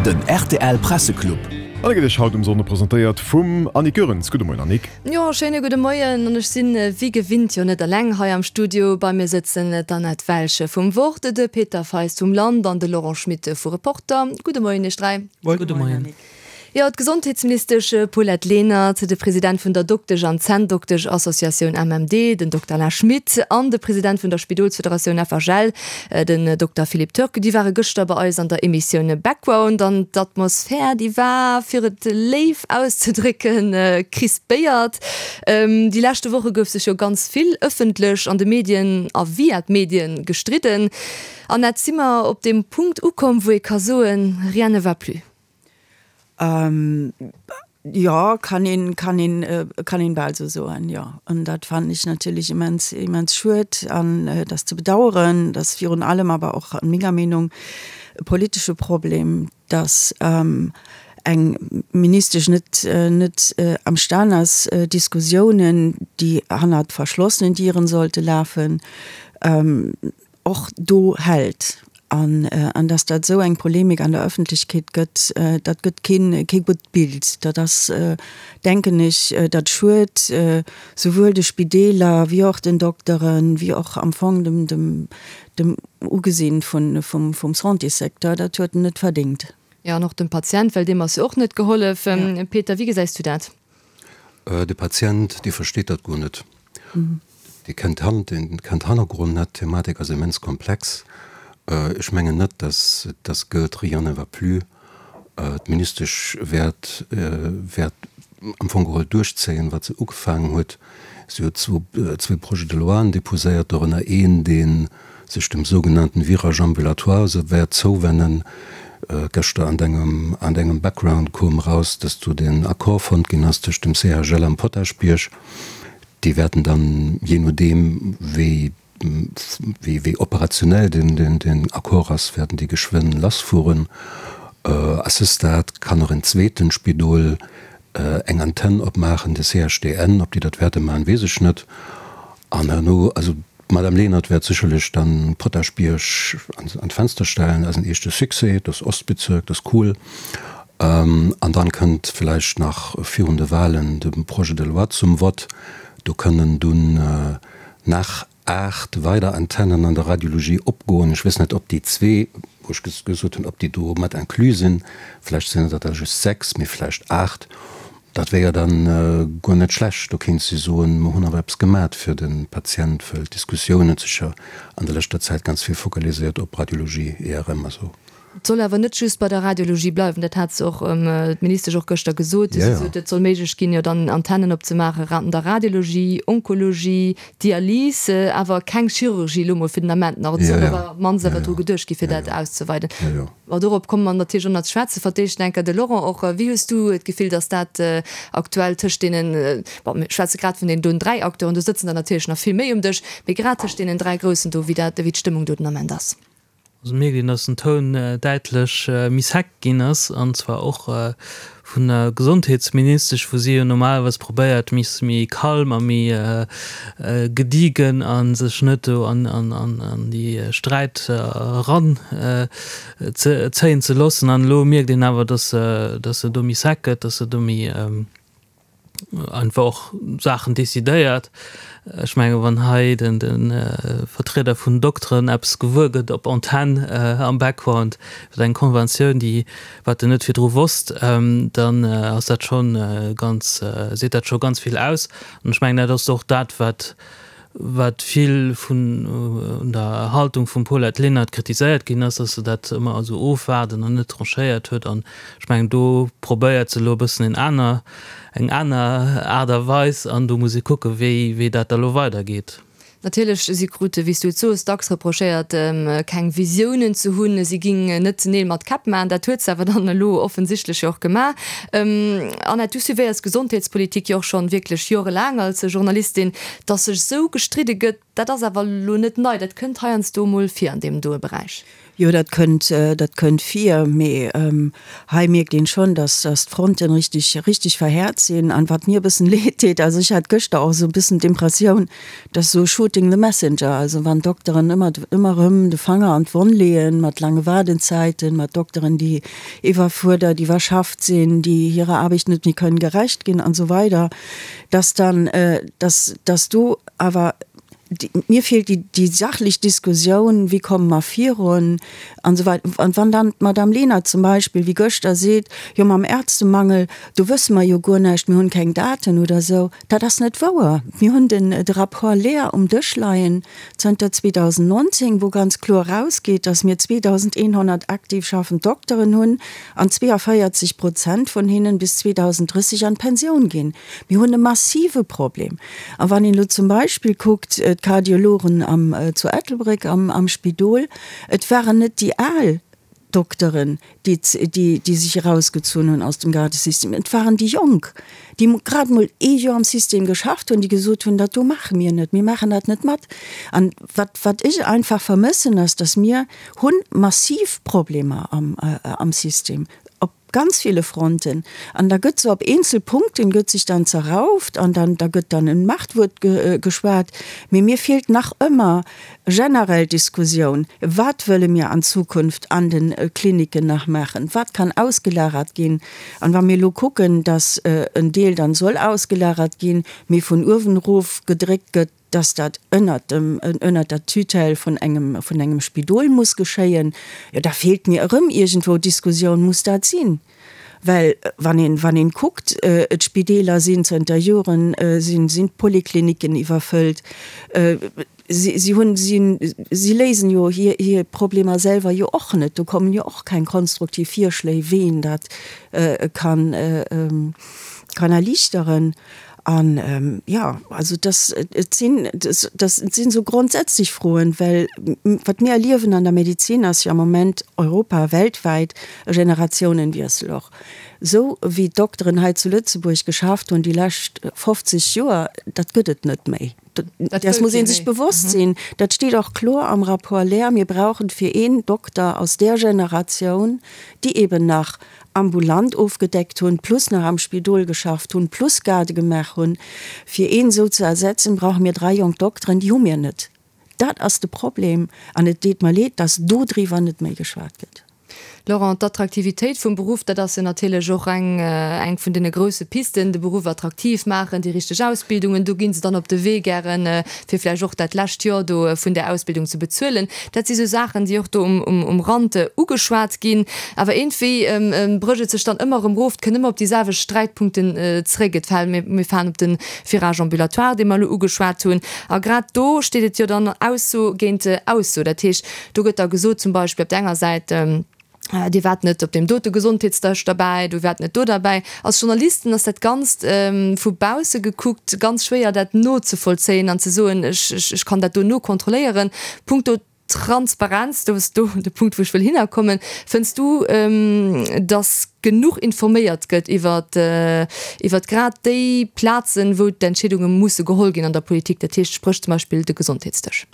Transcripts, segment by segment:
Den rtl Presseclub. An e gëtt Iech haut um Sonnde presentéiert vum Annick Goerens. Gudde Moien Annick. Jo, schéine gudde Moien. An ech sinn wéi gewinnt jo net eleng hei am Studio. Bei mir sëtzen d'Annette Welsch vum Wort, de Peter Feist vum Land an de Laurent Schmit vu Reporter. Gudde Moien Iech 3. Gudde Moien. Jo, d'Gesondheetsministesch Paulette Lenert, de President vun der Doktesch an Zänndoktesch-Associatioun MMD, den Dokter Alain Schmit, an de President vun der Spidolsfederatioun FHL, den Dokter Philippe Turk, déi ware gëschter bei eis an der Emissioun Background. An d'Atmosphär, déi war, fir et léif auszedrécken, crispéiert. Déi leschte Woche gouf sech jo ganz vill ëffentlech an de Medien a via d'Medien gestridden. Annette, si mer op deem Punkt ukomm, wou ee ka soen, rien ne va plus? Jo, kann een, kann een, kann een bal esou soen, jo. An dat fannen ech natierlech immens, immens schued an et ass ze bedauern. Et ass virun allem awer och an menger Meenung e politesche Problem, dass eng Ministesch net, net amstan ass, Diskussiounen, déi hannert verschlossenen Dieren sollte lafen, och do hält an an dass dat esou eng Polemik an der Öffentlechkeet gëtt, dat gëtt keen kee gutt Bild. Dat ass, denken ech, dat schued souwuel de Spideeler wéi och den Dokteren, wéi och am Fong dem dem dem Ugesinn vun vum vum Santéssecteur. Dat huet en net verdéngt. Jo, an och dem Patient, well deem ass jo och net gehollef. Peter, wéi gesäis du dat? De Patient, dee versteet dat guer net. Dee kennt d'Hannergrond net. D'Thematik ass immens komplex. Ech mengen net, dass dass gëllt, rien ne va plus. D'Ministesch wäert wäert am Fong geholl duerchzéien, wat se ugefaangen huet. Si huet zwou zwee Projets de loien déposéiert, dorënner een, dee sech dem sougenannten Virage ambulatoire se wäert zouwennen. Gëschter an dengem an dengem Background koom eraus, dass do den Accord fonnt ginn ass tëscht dem CHL am Potaschbierg. Déi wäerten dann, jee nodeem wéi wéi operationell den Accord ass, wäerten déi geschwënn lassfueren. À ce stade kann och en zweeten Spidol eng Antenn opmaachen, de CHDN. Ob déi dat wäerte maachen, weess ech net. An herno, also d'Madame Lenert wäert sécherlech dann Potaschbierg an d'Fenster stellen als en éischte Succès, dat ass Ostbezirk, dat ass cool. An dann kënnt vläicht nach virun de Wahlen de Projet de loi zum Vott. Do kënnen dunn nach 8 weider Antennen an der Radiologie opgoen. Ech weess net, ob déi zwee, wou ech gesot hunn, ob déi do mat inclus sinn. Vläicht sinn et der da just 6, mee vläicht 8. Dat wär jo dann guer net schlecht. Do kéint si soen, mer hunn awer eppes gemat fir de Patient, wëll d'Diskussioun huet sech jo an der leschter Zäit ganz vill focaliséiert op Radiologie, IRM a sou. Et soll awer net just bei der Radiologie bleiwen, dat hat se och, d'Ministesch och gëschter gesot. Si sot, et soll méiglech ginn, jo dann Antennen opzemaachen an der Radiologie, Onkologie, Dialys, awer keng Chirurgie elo mol fir den Ament nach. Et soll awer op d'mannst awer dru geduecht gi fir dat auszeweiden. Bon, dorop komme mer natierlech och nach ze schwätzen. Fir d'éischt enker de Laurent och. Wéi hues du d'Gefill, datt dat aktuell tëscht deenen, bon, mir schwätze grad vun deenen doen 3 Acteuren, do sëtzen der natierlech nach vill méi um Dësch, mee grad tëscht deenen 3 Groussen do, wéi dat, wéi d'Stëmmung do den Ament ass? Also mierkt een, dass den Toun däitlech méi sec ginn ass, an zwar och vun der Gesondheetsministesch, wou si jo normalerweis probéiert, méi méi calm a méi gediegen a sech net do an déi Sträit eran zéien ze loossen. An elo mierkt een awer, dass se do méi sec gëtt, dass se do méi einfach och Saachen decidéiert. Ech menge wann hei de Vertrieder vun Dokteren eppes gewuer gëtt op Antenn am Background iwwer eng Konventioun, déi wat en net virdru wosst, dann ass dat scho ganz, seet dat scho ganz vill aus. An ech mengen dat ass och dat wat wat vill vun der Haltung vum Paulette Lenert kritiséiert ginn ass, dass se dat ëmmer esou ofwaarden an net tranchéiert huet. An ech mengen, do probéiert se elo e bëssen en aner, eng aner Aart a Weis an do muss ee kucken, wéi, wéi dat da elo weidergeet. Natierlech, si krute, wéi s du et soos, dacks reprochéiert, keng Visiounen ze hunn, si géing net Neel mat Käpp maachen. Dat huet se awer dann elo offensichtlech jo och gemaach. Annette, du suivéiers d'Gesondheetspolitik jo och schonn wierklech jorelaang als Journalistin. Dass sech esou gestridde gëtt, dat ass awer elo net nei, dat kënnt heiansdo emol vir an deem doe Beräich. Jo, dat kënnt, dat kënnt vir, mee hei mierkt een schonn, dass, dass d'Fronten richtig, richtig verhäert sinn. An wat mir e bëssen leed deet, also ech hat gëschter och esou e bëssen d'Impressioun, dass esou shooting the messenger, also wann d'Dokteren ëmmer, ëmmer erëm de Fanger an d'Wonn leeën mat laange Waardenzäiten, mat Dokteren, déi iwwerfuerdert, iwwerschafft sinn, déi hirer Aarbecht net méi kënnen gerecht ginn an esou weider, dass dann, dass, dass do awer Mir feelt déi sachlech Diskussioun, wéi komme mer virun an esou weider. An wann dann d'Madame Lenert zum Beispill wéi gëschter seet, jo mam Ärztemangel, do wësse mer jo guer näischt, mir hunn keng Daten oder esou, dat ass net wouer. Mir hunn den de Rapport Lehr um Dësch leien zënter 2019, wou ganz kloer erausgeet, datt mir 2.100 aktiv schaffend Dokteren hunn an 42 Prozent vun hinnen bis 2030 an d'Pensioun ginn. Mir hunn e massive Problem. A wann een elo zum Beispill kuckt, d'Kardiologen am, zu Ettelbréck am, am Spidol, et waren net déi al Dokteren, déi, déi, déi sech erausgezunn hunn aus dem Gardesystem, et waren déi Jonk, déi grad emol ee Joer am System geschafft hunn, déi gesot hunn, dat do maache mir net, mir maachen dat net mat. An wat, wat ech einfach vermëssen, ass, dass mir hunn massiv Problemer am, am System, op ganz ville Fronten an da gëtt sou op eenzel Punkten gëtt sech dann zerrauft an dann da gëtt dann en Machtwuert geschwat, mee mir feelt nach ëmmer generell d'Diskussioun, wat wëlle mir an Zukunft an den Kliniken nach maachen, wat kann ausgelagert ginn an wa mir elo kucken, datt en Deel dann soll ausgelagert ginn, mee vun uewen erof gedréckt gëtt, dass dat ënnert dem, ënnert der Tutelle vun engem, vun engem Spidol muss geschéien, jo da feelt mir erëm iergendwou d'Diskussioun, muss dat sinn? Well wann een, wann een kuckt, d'Spideeler sinn zënter Joren, sinn, sinn d'Polikliniken iwwerfëllt, si, si hunn, si, si léisen jo hir, hir Problemer selwer jo och net, do kommen jo och keng konstruktiv Virschléi, wéi een dat kann, kann erliichteren. An, jo, also dass, et sinn, dass sinn esou grondsätzlech Froen, well wat mir erliewen an der Medezin ass jo am Moment europa-, weltwäit e Generationenwiessel och. Esou wéi d'Dokteren hei zu Lëtzebuerg geschafft hunn déi lescht 50 Joer, dat gëtt et net méi. Dat muss ee sech bewosst sinn. Dat steet och kloer am Rapport Lehr, Mir brauchen fir een Dokter aus där Generatioun, déi eben nach ambulant ofgedeckt hunn, plus nach am Spidol geschafft hunn, plus Garde gemaach hunn, fir een esou ze ersetzen, brauche mir 3 jonk Dokteren, déi hu mir net. Dat ass de Problem an et deet mer leed, dass dodriwwer net méi geschwat gëtt. Laurent, d'Attraktivitéit vum Beruff, dat ass jo natierlech och eng eng vun deene grousse Pisten, de Beruff attraktiv maachen, déi richteg Ausbildungen, do gi se dann op de Wee gären, fir vläicht och dat lescht Joer do vun där Ausbildung ze bezuelen. Dat si sou Saachen, déi och do um Rand ugeschwat ginn. Awer iergendwéi brécht et sech dann ëmmer erëm erof, et kënnt ëmmer op déi selwecht Sträitpunkten zeréck. Et fält, mir falen op de Virage ambulatoire, dee mer elo ugeschwat hunn. A grad do steet et jo dann Ausso géint Ausso. Dat heescht, do gëtt da gesot zum Beispill op der enger Säit, Dir waart net op deem dote Gesondheetsdësch derbäi, du waart net do derbäi. Als Journalisten ass dat Ganzt vu bausse gekuckt ganz schwéier dat nozevollzéien an ze soen, ech, ech kann dat do nokontrolléieren. Punkto Transparenz, do ass do de Punkt wou ech wëll hinnerkommen. Fënns du, datt genuch informéiert gëtt iwwer iwwer grad déi Plazen, wou d'Entscheedunge musse geholl ginn an der Politik, dat heescht spréch zum Beispill de Gesondheetsdësch?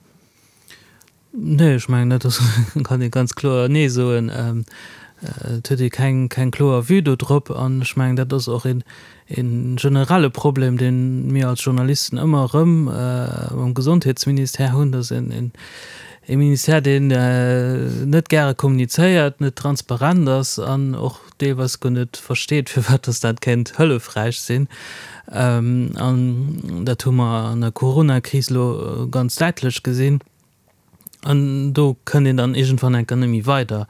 Nee, ech mengen dat ass, kann ee ganz kloer Nee soen. Et huet ee keng, keng kloer Vue do drop. An ech mengen, dat ass och een, ee generelle Problem, dee mir als Journalisten ëmmer erëm mam Gesondheetsministère hunn, dass een, een, ee Ministère, deen net gäre kommunizéiert, net transparent ass an och deelweis guer net versteet, firwat dass dat kéint hëllefräich sinn. An dat hu mer an der Coronakris elo ganz däitlech gesinn. An do kënnt een dann iergendwann enker net méi weider.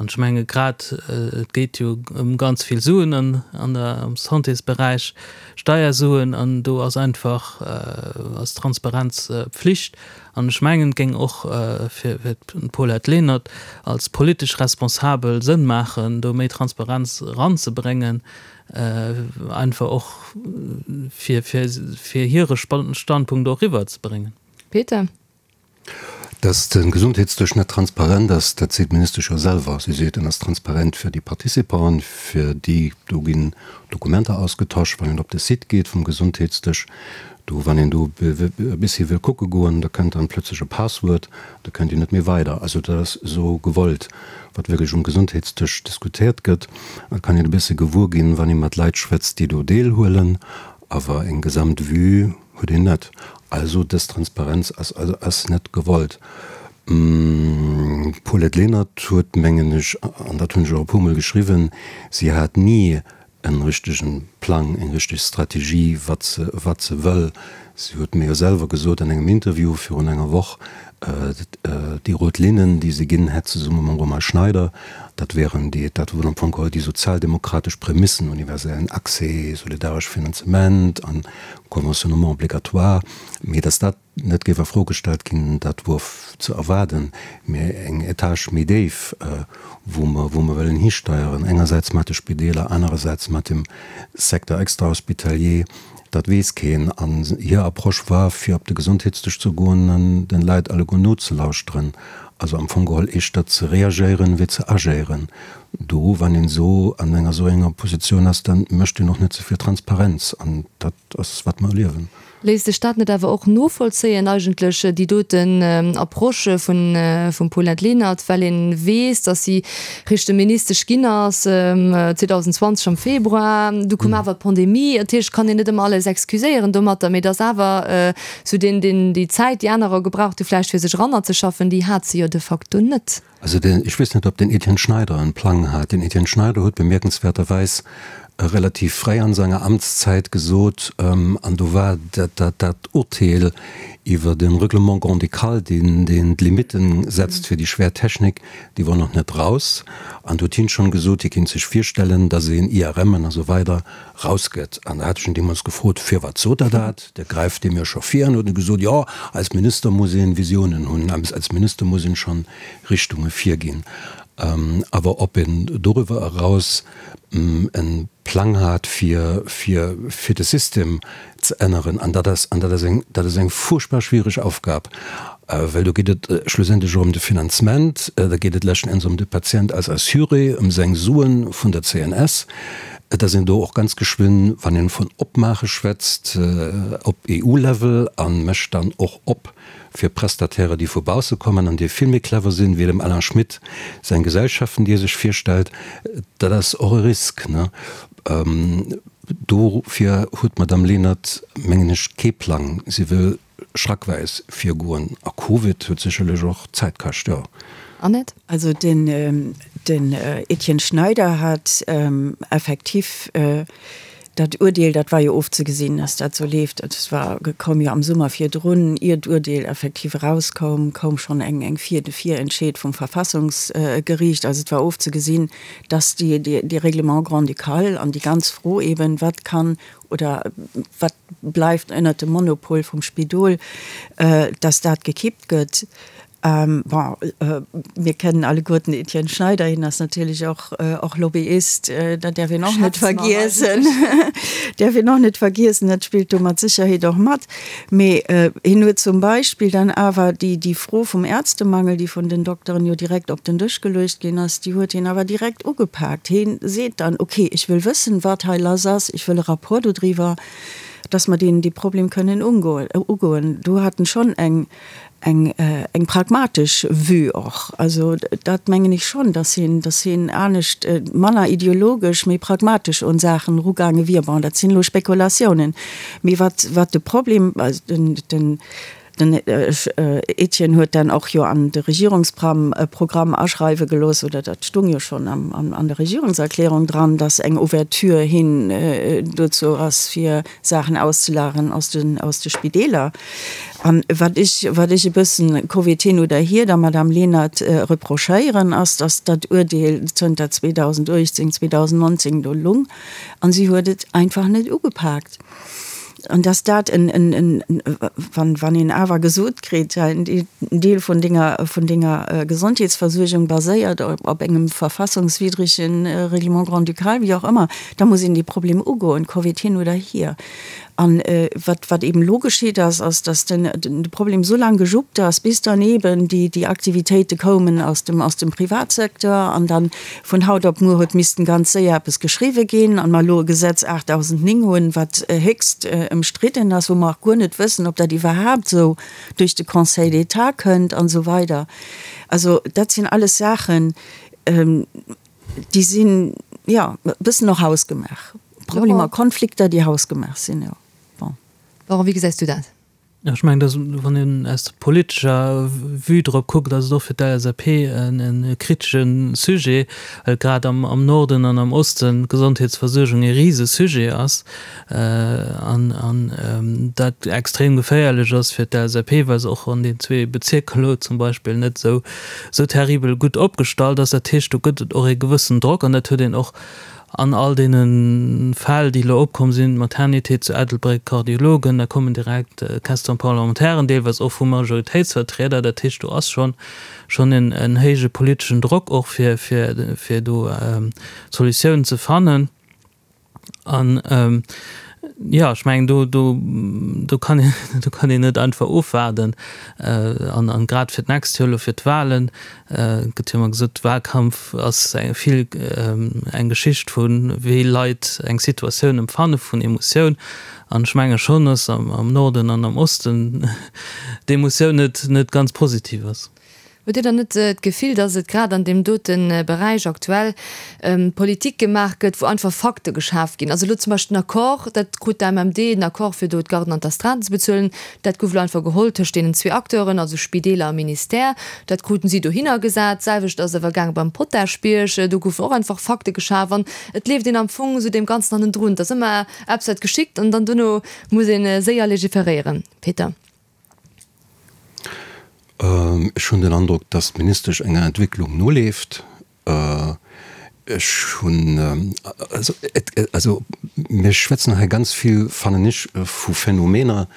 An ech menge grad, et geet jo ëm ganz vill Suen an an der am Santésberäich, Steiersuen, an do ass einfach ass Transparenz Pflicht. An ech mengen, et géing och fir d'Paulette Lenert als politesch Responsabel Sënn maachen, do méi Transparenz eranzebréngen, einfach och fir hire Standpunkt och eriwwerzebréngen. Peter. Dass de Gesondheetsdësch net transparent ass, dat seet d'Ministesch jo selwer. Si seet, en ass transparent fir déi Participanten, fir déi, do ginn Dokumenter ausgetosch, wann een op de Site geet vum Gesondheetsdësch, do wann een do e bessi wëll kucke goen, da kënnt dann plötzlech e Passwuert, da kënnt een net méi weider. Also dat ass esou gewollt, wat wierklech um Gesondheetsdësch diskutéiert gëtt. Dat kann een e bësse gewuer ginn, wann ee mat Leit schwätzt, déi do deelhuelen, awer eng gesamt Vue huet een net. Also dës Transparenz ass also ass net gewollt. D'Paulette Lenert huet, mengen ech, an dat hunn ech och e puermol geschriwwen, si hat ni en richtegen Plang, eng richteg Strategie, wat se, wat se wëll. Si huet mir jo selwer gesot an engem Interview virun enger Woch, déi rout Linnen, déi se ginn hätt zesumme mam Romain Schneider, dat wären déi, dat wor am Fong geholl déi sozialdemokratesch Prämissen, universellen Accès, solidaresch Finanzement an Conventionnement obligatoire, mee datt dat net géif a Fro gestallt ginn, dat wor ze erwaarden, mä eng Etage méi déif, wou mer, wou mer wëllen histeieren, engersäits mat de Spideeler, anerersäits mat dem Secteur extrahospitalier, dat weess keen. An hir Approche war, fir op de Gesondheetsdësch ze goen an den Leit alleguer nozelauschteren, also am Fong geholl éischter ze reagéieren, wéi ze agéieren. Do, wann een esou an enger esou enger Positioun ass, da mécht een och net esou vill Transparenz, an dat ass, wat mer erliewen. Léisst sech dat net awer och novollzéien eigentlech, déi doten Approche vun vum Paulette Lenert, well een weess, datt si richte Ministesch ginn ass 2020 am Februar, du koum awer d'Pandemie, dat heescht, kann een net ëmmer alles excuséieren domatter, mee datt awer esou deen, deen, déi Zäit, déi anerer gebraucht hu vläicht fir sech erannerzeschaffen, déi hat se jo de facto net. Also den, ech weess net, ob den Etienne Schneider en Plang hat. Den Etienne Schneider huet bemierkenswäerterweis relativ fréi an senger Amtszäit gesot, an do war dat, dat, dat Urteel iwwer de Règlement grand-ducal, deen, deen d'Limitten setzt fir déi schwér Technik, déi wor nach net raus. An do huet hien schonn gesot, hie kéint sech virstellen, dass een IRMen a sou weider rausgëtt. An da hat ech en deemools gefrot, Firwat sot Der dat? Der gräift deem jo scho vir. An huet e gesot, Jo, als Minister muss een Visiounen hunn, als Minister muss een schonn Richtunge virginn. Awer ob een doriwwer eraus e Plang hat, fir, fir, fir de System ze änneren, an dat ass, an dat ass eng, dat ass eng furchtbar schwiereg Aufgab, well do geet et schlussendlech och ëm de Finanzement, da geet et leschten Enns ëm de Patient als Assuré, ëm seng Suen vun der CNS. Et ass een do och ganz geschwënn, wann een vun Opmaache schwätzt, op EU-Level a mécht dann och op fir Prestataire, déi vu bausse kommen an déi vill méi clever sinn, wéi dem Alain Schmit seng Gesellschaften, déi e sech virstellt. Dat ass och e Risk. Dofir huet d'Madame Lenert, mengen ech, kee Plang. Si wëll schrackweis virgoen. A Covid huet sécherlech och Zäit kascht, jo. Annette? Also den Etienne Schneider hat effektiv dat Urteel, dat war jo ofzegesinn, dass dat esou leeft, dat war, koum jo am Summer virdrun, ier d'Urteel effektiv erauskoum, koum schonn eng Vir, de Virentscheed vum Verfassungsgeriicht. Also et war ofzegesinn, dass déi, dee Règlement grand-ducal an déi ganz Fro eben, wat kann oder wat bleift ënnert dem Monopol vum Spidol, dass dat gekippt gëtt. Bon, mir kennen alleguerten den Etienne Schneider, hien ass natierlech och, och Lobbyist, dat däerf een och net vergiessen, däerf een och net vergiessen, dat spillt do mat Sécherheet och mat. Mee hien huet zum Beispill dann awer déi, déi Fro vum Ärztemangel, déi vun den Dokteren jo direkt op den Dësch geluecht ginn ass, déi huet hien awer direkt ugepaakt. Hien seet dann, okay, ech wëll wëssen, wat hei lass ass, ech wëll e Rapport dodriwwer, dass mer deen, dee Problem kënnen ugoen. Do hat en schonn eng, eng, eng pragmatesch Vue och. Also dat mengen ech schonn, dass hien, dass hien anescht, manner ideologesch, méi pragmatesch un Saachen erugaange wier. Bon, dat sinn elo Spekulatiounen. Mee wat, wat de Problem, also den, den, den Etienne huet dann och jo an de Regierungsprogramm Programm aschreiwe gelooss, oder dat stung jo schonn am, an, an der Regierungserklärung dran, dass eng Ouverture hin dozou ass, fir Saachen auszelagern aus den, aus de Spideeler. An wat ech, wat ech e bëssen, Covid hin oder hier, der Madame Lenert reprochéieren, ass, dass dat Uerdeel zënter 2018, 2019 do lung an si huet et einfach net ugepaakt. An dass dat en, en, en, wann, wann een awer gesot kritt, en Deel vun denger, vun denger Gesondheetsversuergung baséiert op, op engem verfassungswiddregen Règlement grand-ducal, wéi och ëmmer, da muss een dee Problem ugoen, Covid hin oder hier. An wat, wat eben elo geschitt ass, ass, dass den, de Problem esou laang gejuppt ass, bis dann eben déi, déi Aktivitéite koumen aus dem, aus dem Privatsecteur an dann vun haut op muer huet missten ganz séier eppes geschriwwe ginn an mer elo e Gesetz 8009 hunn, wat héchst ëmstridden ass, wou mer och guer net wëssen, ob dat iwwerhaapt esou duerch de Conseil d'État kënnt an esou weider. Also dat sinn alles Saachen, déi sinn, jo, e bëssen och hausgemaach. Problemer, Konflikter, déi hausgemaach sinn, jo. Bon. Laurent, wéi gesäis du dat? Jo, ech mengen, dass, wann een aus der politescher Vue drop kuckt, ass et och fir d'LSAP e kritesche Sujet, well grad am Norden an am Osten d'Gesondheetsversuergung e Risesujet ass an dat extrem geféierlech ass fir d'LSAP, well se och an den zwee Bezierker elo zum Beispill net esou terribel gutt opgestallt ass. Dat heescht, do gëtt et och e gewëssen Drock an dat huet een och an all deene Fäll, déi elo opkomm sinn, d'Maternité zu Ettelbréck, Kardiologen, da kommen direkt Question-parlementairen, deelweis och vu Majoritéitsvertrieder. Dat heescht, do ass schonn schonn en héije politeschen Drock och, fir fir do Solutiounen ze fannen. An jo, ech mengen, do do do kann een do kann een net einfach ofwaarden. An an grad fir d'nächst Joer elo fir d'Wahlen gëtt jo ëmmer gesot, Wahlkampf ass eng vill eng Geschicht vu wéi Leit eng Situatioun empfanne vun Emotioun. An ech menge schonn, datt am Norden an am Osten d'Emotioun net net ganz positiv ass. Hutt Dir dann net d'Gefill, datt et grad an deem dote Beräich aktuell Politik gemaach gëtt, wou einfach Fakte geschaf ginn? Also elo zum Beispill den Accord, dat krut d'AMMD, den Accord fir do d'Garden an d'Astreinten ze bezuelen, dat gouf elo einfach geholl tëscht deenen zwee Acteuren, also Spideeler a Ministère. Dat kruten si dohinner gesat. D'selwecht ass awer gaange beim Potaschbierg, do goufen och einfach Fakte geschaf an et leeft een am Fong esou deem Ganzen hannendrun. Et ass ëmmer eppes wat geschitt an dann dono muss ee séier legiferéieren. Peter. Ech hunn den Androck, dass d'Ministesch enger Entwécklung noleeft. Ech hunn, also et, also mir schwätzen hei ganz vill, fannen ech, vu Phänomener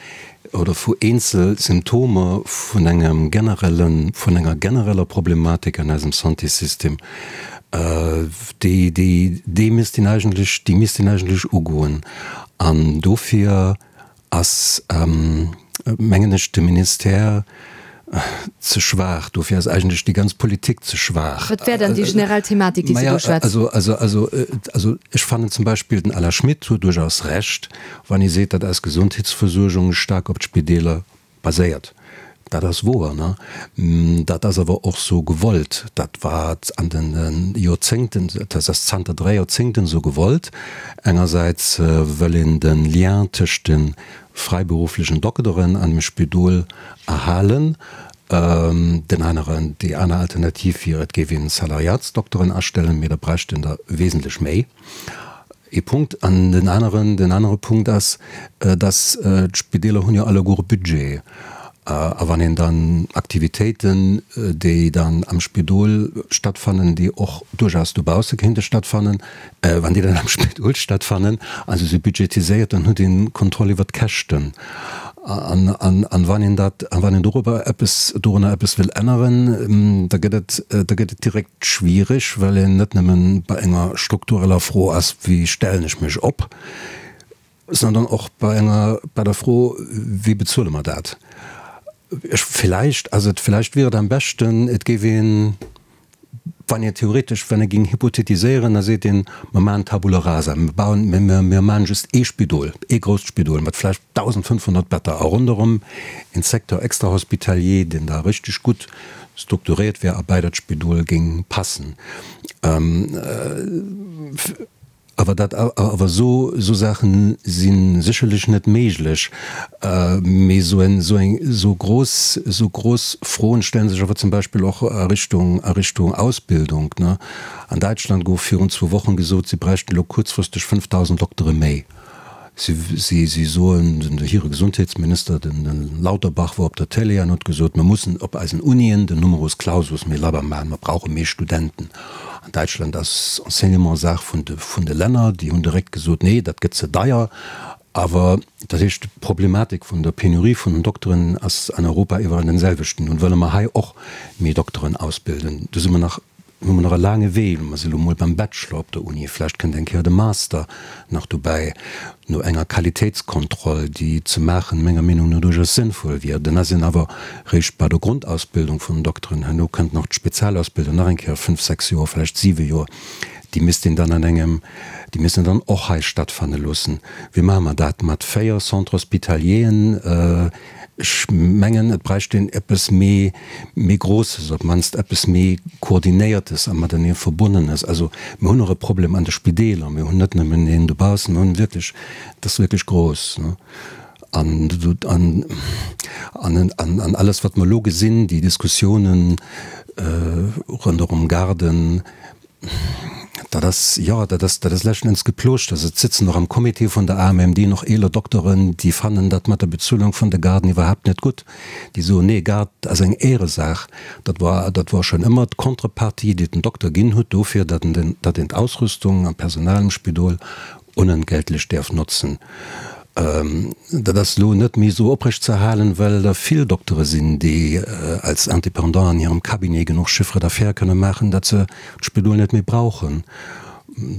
oder vu eenzel Symptomer vun engem generellen, vun enger genereller Problematik an eisem Santéssystem, déi, déi, déi misst een eigentlech, déi misst een eigentlech ugoen. An dofir Ass, mengen ech, de Ministère ze schwaach. Dofir ass eigentlech déi ganz Politik ze schwaach. Wat wär dann déi generell Thematik, déi s de do schwätz? Also, also, also, also ech fannen zum Beispill, den Alain Schmit huet duerchaus Recht, wann hie seet, datt eis Gesondheetsversuergung staark op d'Spideeler baséiert. Dat ass woer, ne? Dat ass awer och sou gewollt. Dat war an de Joerzéngten, dat ass zanter 3 Joerzéngten sou gewollt. Engersäits wëll een de Lien tëscht de fräiberufflechen Dokteren an dem Spidol erhalen. Den aneren, déi aner Alternativ wier, et géif een Salariatsdokteren astellen, mee da bräicht een der wesentlech méi. Ee Punkt. An den aneren, den anere Punkt ass, dass d'Spideeler hunn jo alleguer e Budget. A wann een dann Aktivitéiten, déi dann am Spidol stattfannen, déi och duerchaus dobausse kéinte stattfannen, wann déi dann am Spidol stattfannen a se si budgetiséiert, dann huet een Kontroll iwwert d'Käschten. An, an, an wann een dat, a wann een dorobber eppes, dorunner eppes wëll änneren, da gëtt et, da gëtt et direkt schwiereg, well een net nëmmen bei enger struktureller Fro ass, wéi stellen ech mech op, sondern och bei enger, bei der Fro, wéi bezuele mer dat? Ech, villäicht ass et, villäicht wier et am beschten, et géif een, wann een theoretesch, wann ee géing hypothetiséieren, da seet een, mer maachen Tabula rasa, mer bauen, mer, mer maachen just ee Spidol, ee grousst Spidol mat vläicht 1.500 Better a ronderëm een Secteur extrahospitalier, deen da richteg gutt strukturéiert wär a bei dat Spidol géing passen. Awer dat, awer esou, esou Saache si sécherlech net méiglech. Mee esou en, esou eng, esou grouss, esou grouss Froen stelle sech awer zum Beispill och a Richtung, a Richtung Ausbildung, ne. An Däitschland gouf virun zwou Wochen gesot, si bräichten elo kuerzfristeg 5.000 Doktere méi. Si soen, den hire Gesondheetsminister, den Lauterbach, wor op der Télé an huet gesot, mir mussen op eisen Unien den Numerus Clausus méi labber maachen, mer brauche méi Studenten. An Däitschland ass Enseignement Saach vun de vun de Länner, déi hunn direkt gesot, nee, dat gëtt ze deier. Awer dat heescht, d'Problematik vun der Penurie vun den Dokteren ass an Europa iwwerall den selwechten. Nun wëlle mer hei och méi Dokteren ausbilden. Do si mer nach. hu mer nach e laange Wee. Mer si lo mol beim Bachelor op der Uni, vläicht kënnt eng Kéier de Master nach dobäi, no enger Qualitéitskontroll, déi ze maachen, menger Meenung no duerchaus sënnvoll wier. Dann ass een awer réischt bei der Grondausbildung vun den Dokteren. Herno kënnt nach d'Spezialausbildung, nach eng Kéier fënnf, sechs Joer, vläicht siwe Joer. Déi misst een dann an engem, déi misst een dann och hei stattfanne loossen. Wéi maache mer dat mat véier Centres hospitalieren? Ech mengen, et bräicht een eppes méi, méi Groosses, op d'mannst eppes méi Koordinéiertes a matenee Verbonnenes. Also mir hunn och e Problem an de Spideeler. Mir hunn net nëmmen een dobaussen, mir hunn wierklech, dat ass wierklech grouss. An, an, an, an alles, wat mer elo gesinn, déi Diskussiounen ronderëm Garden, Dat ass, jo, dat ass, dat ass leschten Enns Geplooschters. Et sëtzen och am Comité vun der AMMD nach eeler Dokteren, déi fannen dat mat der Bezuelung vun de Garden iwwerhaapt net gutt. Déi soen, nee, Garde ass eng Éieresaach. Dat war, dat war schonn ëmmer d'Contrepartie, déi den Dokter ginn hutt dofir, datt en den, datt een d'Ausrüstung an d'Personal am Spidol onentgeltlech däerf notzen. Dat ass elo net méi esou oprecht ze erhalen, well der vill Doktere sinn, déi als Indépendant an hirem Cabinet genuch Chiffre d'affaires kënne maachen, datt se d'Spidol net méi brauchen.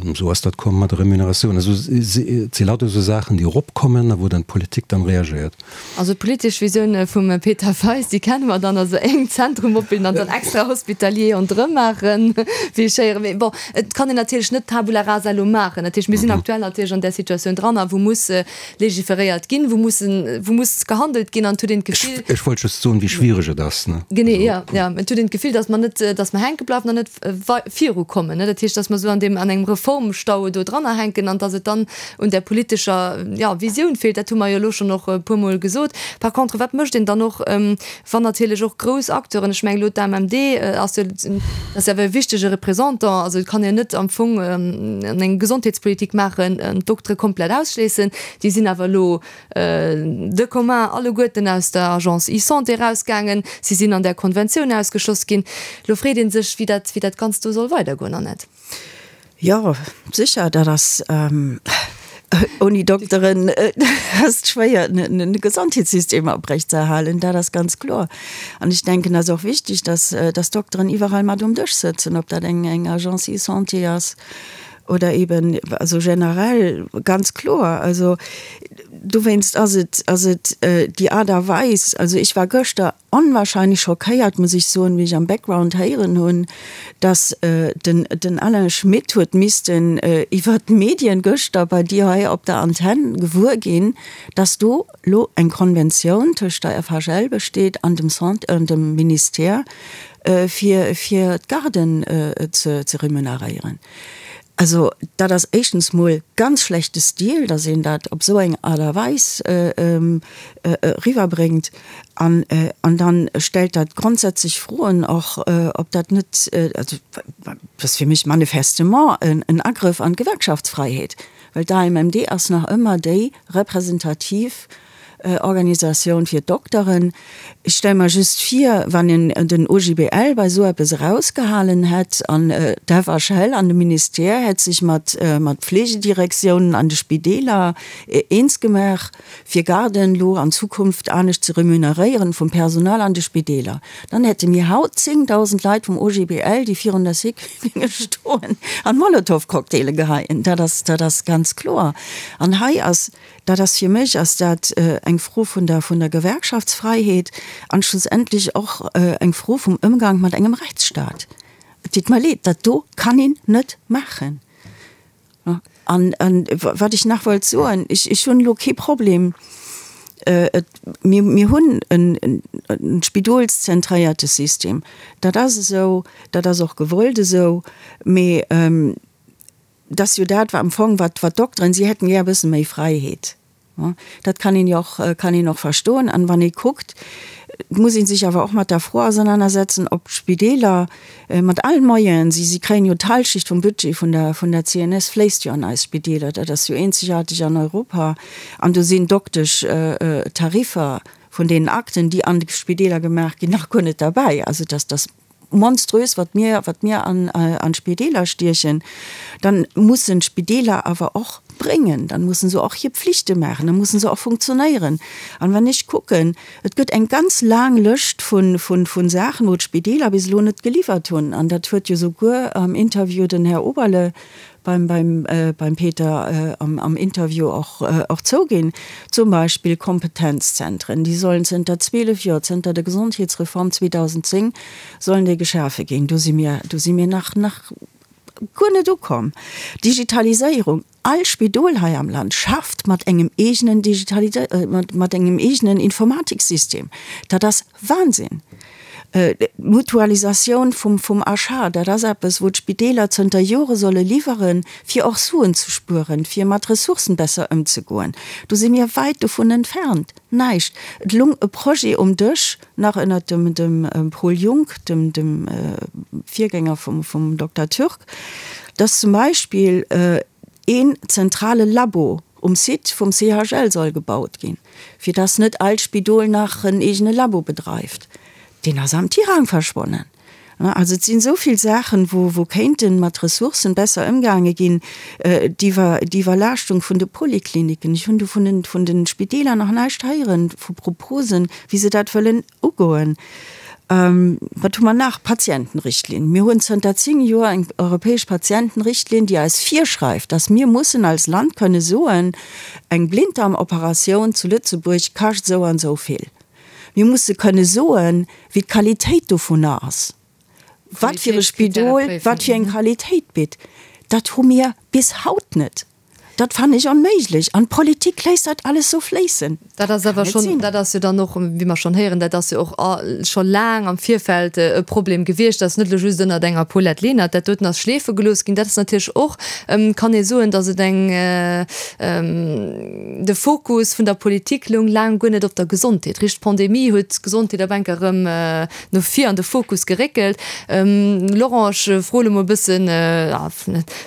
Esou ass dat komm mat der Remuneratioun. Also et si lauter esou Saachen, déi eropkommen a wou dann d'Politik dann reagéiert. Also d'politesch Visioun vum Peter Feist, déi kenne mer dann, also en Zentrum opbilden an dann extra hospitalier ronderëm maachen, wéi ech héieren. Mee bon, et kann een natierlech net Tabula rasa elo maachen. Dat heescht, mir sinn aktuell natierlech an där Situatioun dran, a wou muss legiferéiert ginn, wou mussen, wou muss gehandelt ginn an et huet een d'Gefill. Ech wollt just soen, wéi schwiereg et ass, ne? Genee, jo, jo. Et huet een d'Gefill, datt mer net, datt mer hänke bleiwen an net virukommen, ne? Dat heescht, datt mer esou an deem, an engem Reformstau do drannerhänken an datt et dann un där politescher, jo, Visioun feelt. Dat hu mer jo elo schonn och e puermol gesot. Par contre, wat mécht een dann och, wann natierlech och grouss Acteuren, ech mengen elo d'AMMD ass jo, ass jo awer e wichtege Représentant, also et kann een net am Fong eng Gesondheetspolitik maachen, d'Doktere komplett ausschléissen, déi sinn awer elo de commun alleguerten aus der Agence eSanté erausgaangen, si sinn an där Konventioun ausgeschloss ginn. Elo freet ee sech, wéi dat, wéi dat Ganzt do soll weidergoen, Annette. Jo, sécher, dat ass, ouni Dokteren ass et schwéier, e Gesondheetssystem oprechtzeerhalen, dat ass ganz kloer. An ech denken, et ass och wichtig, dass, dass d'Dokteren iwwerall mat um Dësch sëtzen, ob dat eng, eng Agence eSanté ass oder eben, also generell ganz kloer. Also dowéinst ass et, ass et déi Aart a Weis, also ech war gëschter onwahrscheinlech schockéiert, muss ech soen, wéi ech am Background héieren hunn, dass den den Alain Schmit huet missten iwwert d'Medien gëschter bei dir hei op der Antenn gewuer ginn, dass do lo eng Konventioun tëscht der FHL besteet an dem Sant an dem Ministère fir fir d'Garden ze ze remuneréieren. Also dat ass éischtens mol ganz schlechte Stil, dass een dat op esou eng Aart a Weis eriwwerbréngt. An dann stellt dat grondsätzlech Froen och, ob dat net, also dat ass fir mech manifestement en Agrëff an d'Gewerkschaftsfreiheet, well d'AMMD ass nach ëmmer déi representativ Organisatioun fir d'Dokteren. Ech stelle mer just vir, wann een den OGBL bei esou eppes erausgehalen hätt an d'FHL an de Ministère hätt sech mat Pflegedirektiounen an de Spideeler eens gemaach, fir Garden elo an Zukunft anescht ze remuneréieren vum Personal an de Spideeler, dann hätte mir haut 10.000 Leit vum OGBL, déi virun der Sécu géinge stoen an Molotowcocktaile geheien. Dat ass, dat ass ganz kloer. An hei ass, dat ass fir mech ass dat eng Fro vun der, vun der Gewerkschaftsfreiheet an schlussendlech och eng Fro vum Ëmgang mat engem Rechtsstaat. Et deet mer leed, dat do kann een net maachen. An wat ech nach wollt soen, ech hunn elo kee Problem, mir, mir hunn en spidolszentréierte System, dat ass esou, dat ass och gewollt esou, mee dat ass jo dat, wat am Fong, wat d'Dokteren, si hätten gär e bësse méi Fräiheet. Dat kann een jo och, kann een och verstoen. An wann ee kuckt, et muss ee sech awer och mat der Fro ausernanersetzen, ob d'Spideeler mat allen Moyenen, si, si kréien jo d'Halschicht vum Budget vun der, vun der CNS fléisst jo an eis Spideeler, dat ass jo eenzegaarteg an Europa, an do sinn Doktesch-Tariffer vun deenen Akten, déi an de Spideeler gemaach ginn, nach guer net derbäi. Also dass, dass monströs, wat mir, wat mir an, an d'Spideeler stiechen, dann mussen d'Spideeler awer och. bréngen, dann mussen se och hir Pflichte maachen, dann mussen se och funktionéieren. An wann ech kucken, et gëtt eng ganz laang Lëscht vun, vun, vun Saachen, wou d'Spideeler bis elo net geliwwert hunn, an dat huet jo souguer am Interview den Här Oberle beim, beim, beim Peter am, am Interview och, och zouginn, zum Beispill Kompetenzzentren, déi sollen zënter 12 Joer, zënter der Gesondheetsreform 2010, sollen déi geschafe ginn. Do si mir, do si mir nach, nach guer net ukomm. Digitaliséierung, All Spidol hei am Land schafft mat engem eegenen Digitalisé, mat engem eegenen Informatiksystem. Dat ass Wahnsinn! D'Mutualisatioun vum, vum Achat, dat ass eppes, wou d'Spideeler zënter Jore solle liwweren, fir och Suen ze spueren, fir mat Ressourcen besser ëmzegoen. Do si mir wäit dovun entfernt. Näischt. Et lung e Projet um Dësch, nach ënnert dem, dem Paul Junck, dem, dem Virgänger vum, vum Dokter Türk, dass zum Beispill een zentrale Labo um Site vum CHL soll gebaut ginn, fir dass net all Spidol nach en eegene Labo bedreift. Deen ass am Tirang verschwonnen. Also et sinn esou vill Saachen, wou wou kéinte mat Ressourcen besser ëmgaange ginn. D'Iwwerlaaschtung vun de Polikliniken, ech hunn do vun den vun de Spideeler nach näischt héieren, vu Proposen, wéi se dat wëllen ugoen. Wat hu mer nach? Patientenrichtlinn. Mir hunn zënter 10 Joer eng europäesch Patientenrichtlinn, déi eis virschreift, dass mir mussen als Land kënne soen, eng Blinddarmoperatioun zu Lëtzebuerg kascht esou an esou vill. Mir musse kënne soen, wéi d'Qualitéit dovunner ass, wat fir e Spidol wat fir eng Qualitéit bitt. Dat hu mir bis haut net. Dat fannen ech onméiglech. An d'Politik léisst dat alles sou fléissen. Dat ass awer schonn, dat ass jo dann och, wéi mer schonn héieren, dat ass jo och scho laang am Virfeld e Problem gewiescht. Dat ass net elo just ënnert enger Paulette Lenert, dat doten ass schleefe gelooss ginn. Dat ass natierlech och, kann ee soen, datt et eng, de Fokus vun der Politik loung laang guer net op der Gesondheet. Richt d'Pandemie huet d'Gesondheet op enker erëm no vir an de Fokus geréckelt. Laurent, ech froe lo mol e bëssen,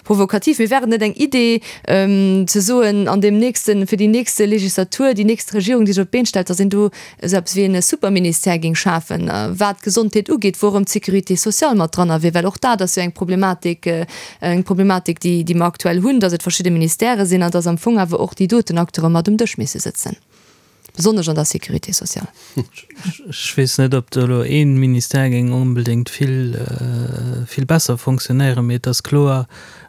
Provokativ, mee wär et net eng Idee, ze soen, an deem nächsten, fir déi nächste Legislatur, déi nächst Regierung, déi sech op d'Been stellt, datt een do esou eppes wéi e Superministère géing schafen, wat d'Gesondheet ugeet, wou erëm d'Sécurité sociale mat dranner wier? Well och dat ass jo eng Problematik, eng Problematik, déi, déi mer aktuell hunn, datt et verschidde Ministèrë sinn an datt am Fong awer och déi doten Acteure mat um Dësch misse sëtzen. Besonnesch an der Sécurité sociale. Ech weess net, ob do elo ee Ministère géing onbedéngt vill, vill besser fonctionnéieren, mee et ass kloer,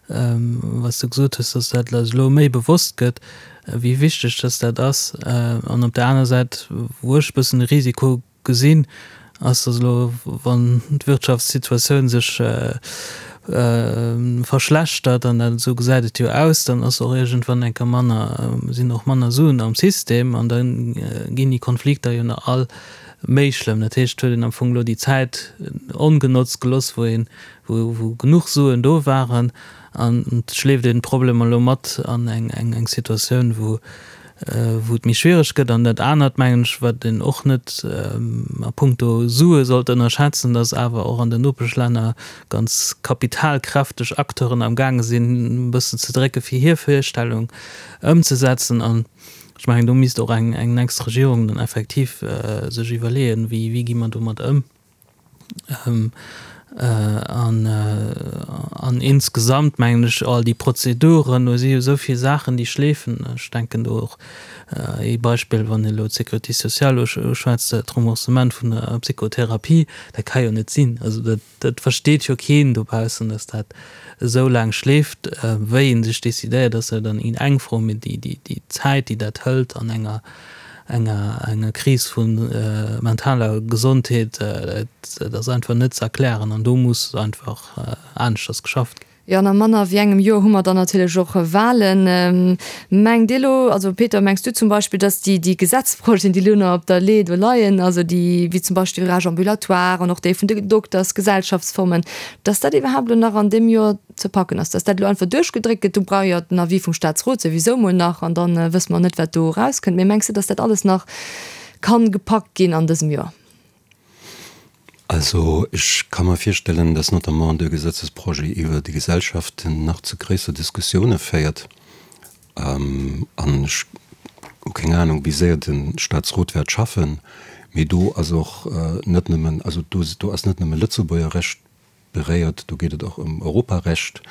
wat s de gesot hues, dass dat eis elo méi bewosst gëtt, wéi wichteg dass dat ass. An op där aner Säit, wou ech e bëssen de Risiko Gesinn ass, dass elo, wann d'Wirtschaftssituatioun sech verschlechtert, an dat esou gesäit et jo aus, dann ass och iergendwann eng Kéier manner, sinn och manner Suen am System an da ginn déi Konflikter jo nach all méi schlëmm. Dat heescht, et huet een am Fong elo déi Zäit ongenotzt gelooss, wou een, wou genuch Suen do waren an et schleeft een d'Problemer elo mat an eng Situatioun, wou wou et méi schwiereg gëtt. An dat anert, mengen ech, wat een och net a puncto Sue sollt ënnerschätzen, dass awer och an den Nopeschlänner ganz kapitalkräfteg Acteuren am gaange sinn, e bëssen ze drécke fir hir Virstellung ëmzesetzen. An ech mengen, do misst och eng nächst Regierung dann effektiv sech iwwerleeën, wéi gi mer domat ëm. An, an insgesamt mengen ech, all déi Prozeduren, do si jo esou vill Saachen, déi schleefen. Ech denken do och ee Beispill, wann ee elo d'Sécurité sociale uschwätzt, d'Remboursement vun der Psychotherapie, dat ka jo net sinn. Also dat, dat versteet jo keen dobaussen, dass dat esou laang schleeft. Wéi ee sech decidéiert, ass jo dann eng Fro, mee déi, déi Zäit, déi dat hëlt an enger enger enger Kris vu mentaler Gesondheet, dat ass einfach net ze erklären an do muss einfach aneschters geschafft ginn. Jo, an a manner wéi engem Joer hu mer dann natierlech och Wahlen. Mengt Dir elo, also Peter, mengs du zum Beispill, datt déi déi Gesetzprojeten, déi elo nach op der Lee do leien, also déi wéi zum Beispill Virage ambulatoire an och déi vun de Doktersgesellschaftsformen, datt dat iwwerhaapt elo nach an deem Joer ze packen ass, dass dat elo einfach duerchgedréckt gëtt, do brauch jo den Avis vum Statsrot souwisou mol nach an da wësse mer net, wat do erauskënnt. Mee mengs de, dass dat alles nach kann gepackt ginn an dësem Joer? Also ech ka mer virstellen, dass notamment de Gesetzesprojet iwwer déi Gesellschaften nach zu gréisser Diskussioune féiert. An ech hu keng Anung, wéi séier de Statsrot wäert schaffen, mee do ass och net nëmmen, also do ass net nëmme Lëtzebuerger Recht beréiert. Do geet et och ëm Europarecht.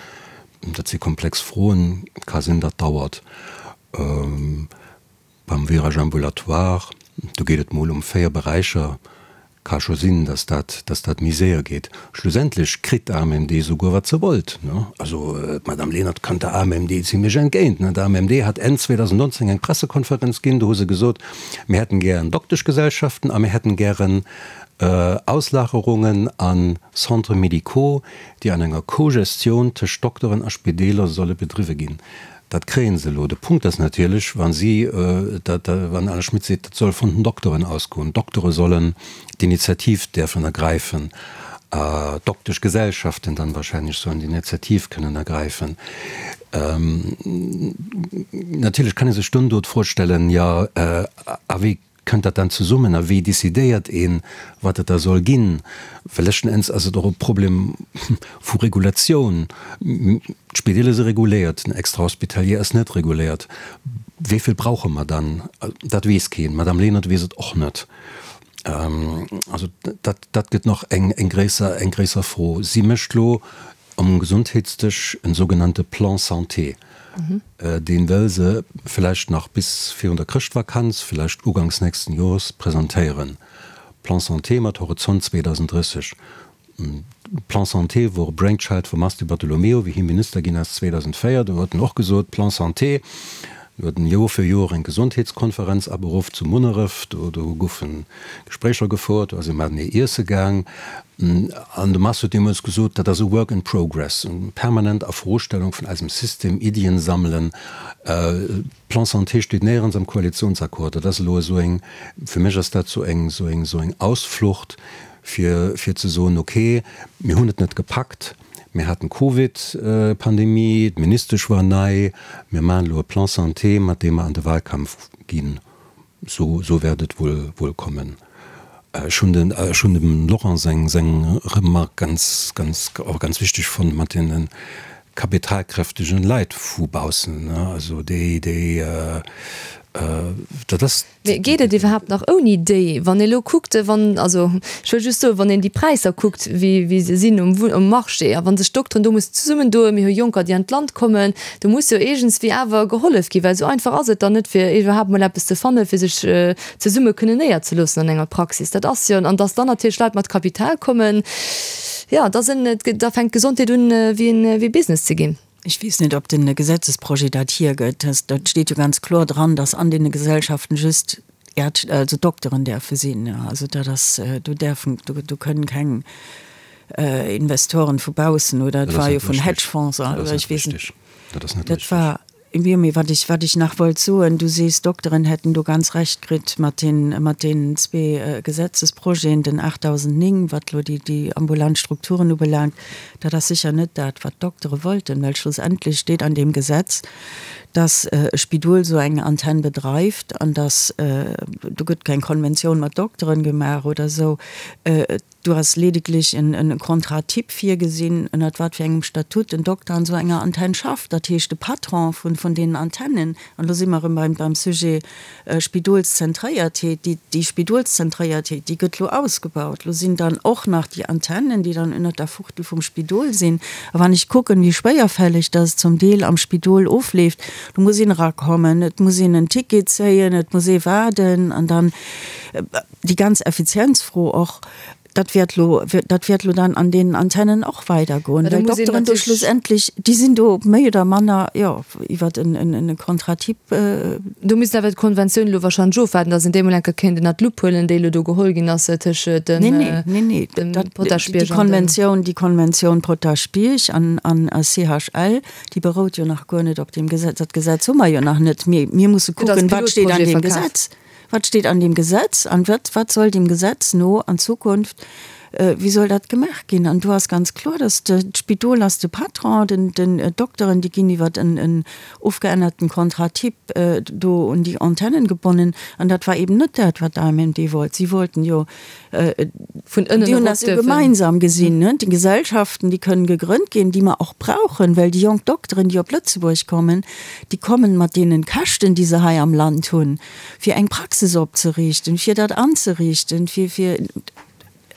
Dat si komplex Froen, ka sinn, dat dauert. Beim Virage ambulatoire, do geet et mol ëm 4 Beräicher, ka scho sinn, dass dat, dass dat méi séier geet. Schlussendlech kritt d'AMMD souguer wat se wollt, ne? Also d'Madame Lenert kënnt der AMMD zimlech entgéint, ne? D'AMMD hat Enn 2019 eng Pressekonferenz ginn, do hu se gesot, mir hätten gären Dokteschgesellschaften a mir hätten gären Auslagerungen a Centres médicaux, déi an enger Co-Gestioun tëscht Dokteren a Spideeler solle bedriwwe ginn. Dat kréie se elo. De Punkt ass natierlech, wa si dat, wann Alain Schmit seet, dat soll vun den Dokteren ausgoen, d'Doktere sollen d'Initiativ däerfen ergräifen, d'Dokteschgesellschaften dann wahrscheinlech sollen d'Initiativ kënnen ergräifen. Natierlech kann ee sech dunn do d'Fro stellen, jo, a wéi Kënnt dat dann zesummen a wéi decidéiert een, wat et da soll ginn? Well leschten Enns ass et och e Problem vu Regulatioun. D'Spideeler si reguléiert, den Extrahospitalier ass net reguléiert. Wéi vill brauche mer dann? Dat weess keen. D'Madame Lenert weess et och net. Also dat, dat gëtt nach eng, eng gréisser, eng gréisser Fro. Si mécht elo um Gesondheetsdësch en sougenannte Plan santé. Deen wëll se vläicht nach bis virun der Chrëschtvakanz, vläicht uganks nächsten Jores presentéieren. Plan santé mat Horizont 2030. Plan santé wor e Brainchild vum Mars Di Bartolomeo, wéi hie Minister ginn ass 2004. Do huet en och gesot, Plan santé. Do huet en Joer fir Joer eng Gesondheetskonferenz aberuff zu Munneref. Do goufe Gespréicher gefouert, do ass ee matenee iesse gaang. An de Mars huet deemools gesot, dat ass e Work in progress, eng permanent Afrostellung vun eisem System, Iddien sammelen. Plan santé steet néierens am Koalitionsaccord. Dat ass elo esou eng, fir mech ass dat esou eng, esou eng, esou eng Ausflucht, fir, fir ze soen, okay, mir hunn et net gepackt, mir haten d'Covid-Pandemie, d'Ministesch war nei, mir maachen elo e Plan santé, mat deem mer an de Wahlkampf ginn. Sou, sou wäert et wuel, wuel kommen. Ech hunn den, ech hunn dem Laurent seng, seng Remark ganz, ganz, och ganz wichteg fonnt mat deene kapitalkräftegen Leit vu baussen, ne, also déi, déi, dat ass. Mee geet et iwwerhaapt nach ouni déi? Wann ee elo kuckt, wann, also ech wëll just soen, wann een déi Präisser kuckt, wéi, wéi se sinn um, um Marché, a wa sech d'Dokteren do mussen zesummendoen, mir hu Jonker, déi an d'Land kommen, Do muss jo iergendswéi awer gehollef ginn, well esou einfach ass et dann net, fir iwwerhaapt mol eppes ze fannen, fir sech zesumme kënnen néierzeloossen an enger Praxis. Dat ass jo, an dass dann natierlech Leit mat Kapital kommen, jo, da sinn, da fänkt d'Gesondheet un, wéi en, wéi Business ze ginn. Ech weess net, ob de Gesetzesprojet dat hiergëtt. Dat steet jo ganz kloer dran, dass an deene Gesellschaften just Ärzte, also Dokteren däerfe sinn. Also dat ass, do däerfen, do kënnen keng Investoren vu baussen oder et war jo vun Hedgefonds oder ech weess net. Dat ass net Dat war, jo, mee wat ech, wat ech nach wollt soen, du sees, d'Dokteren hätten do ganz Recht kritt mat den, mat deenen zwee Gesetzesprojeten, den 8009, wat elo déi, déi ambulant Strukturen ubelaangt. Dat ass sécher net dat, wat d'Doktere wollten, well schlussendlech steet an deem Gesetz, dass e Spidol esou eng Antenn bedreift an dass, do gëtt keng Konventioun mat Dokteren gemaach oder esou, do ass ledeglech en Contrat type virgesinn, ënnert wat fir engem Statut en Dokter an esou enger Antenn schafft. Dat heescht, de Patron vun deenen Antennen, an do si mer erëm beim Sujet Spidolszentréiertheet, déi, déi Spidolszentréiertheet, déi gëtt lo ausgebaut. Lo sinn dann och nach déi Antennen, déi dann ënnert der Fuchtel vum Spidol sinn. A wann ech kucken, wéi schwéierfälleg dass et zum Deel am Spidol ofleeft, do muss een erakommen, et muss een en Ticket zéien, et muss ee waarden an dann déi ganz Effizienzfro och, Dat wäert lo, dat wäert lo dann an deenen Antennen och weidergoen, well d'Dokteren do schlussendlech, déi sinn do méi oder manner, jo, iwwer en Contrat type. Do misst awer d'Konventioun elo wahrscheinlech ofwaarden, datt een déi emol eng Kéier kéint ënnert d'Lupp huelen, déi elo do geholl ginn ass tëscht dem Potaschbierg an dem. Nee, nee, nee, déi Konventioun, déi Konventioun Potaschbierg an CHL, déi berout jo nach guer net op deem Gesetz. Dat Gesetz hu mer jo nach net. Mir, mir musse kucken, wat steet an deem Gesetz. Wat steet an deem Gesetz an wat, wat soll deem Gesetz no an Zukunft, wéi soll dat gemaach ginn? An do ass ganz kloer, dass de, d'Spidol ass de Patron, den, den Dokteren, déi ginn iwwer en, en ofgeännerten Contrat type do un déi Antennen gebonnen. An dat war eben net dat, wat d'AMMD wollt. Si wollten jo, Vun ënnen déi hunn dat jo gemeinsam gesinn, ne, déi Gesellschaften, déi kënnen gegrënnt ginn, déi mer och brauchen, well déi jonk Dokteren, déi op Lëtzebuerg kommen, déi kommen mat deenen Käschten, déi se hei am Land hunn, fir eng Praxis opzeriichten, fir dat anzeriichten, fir, fir.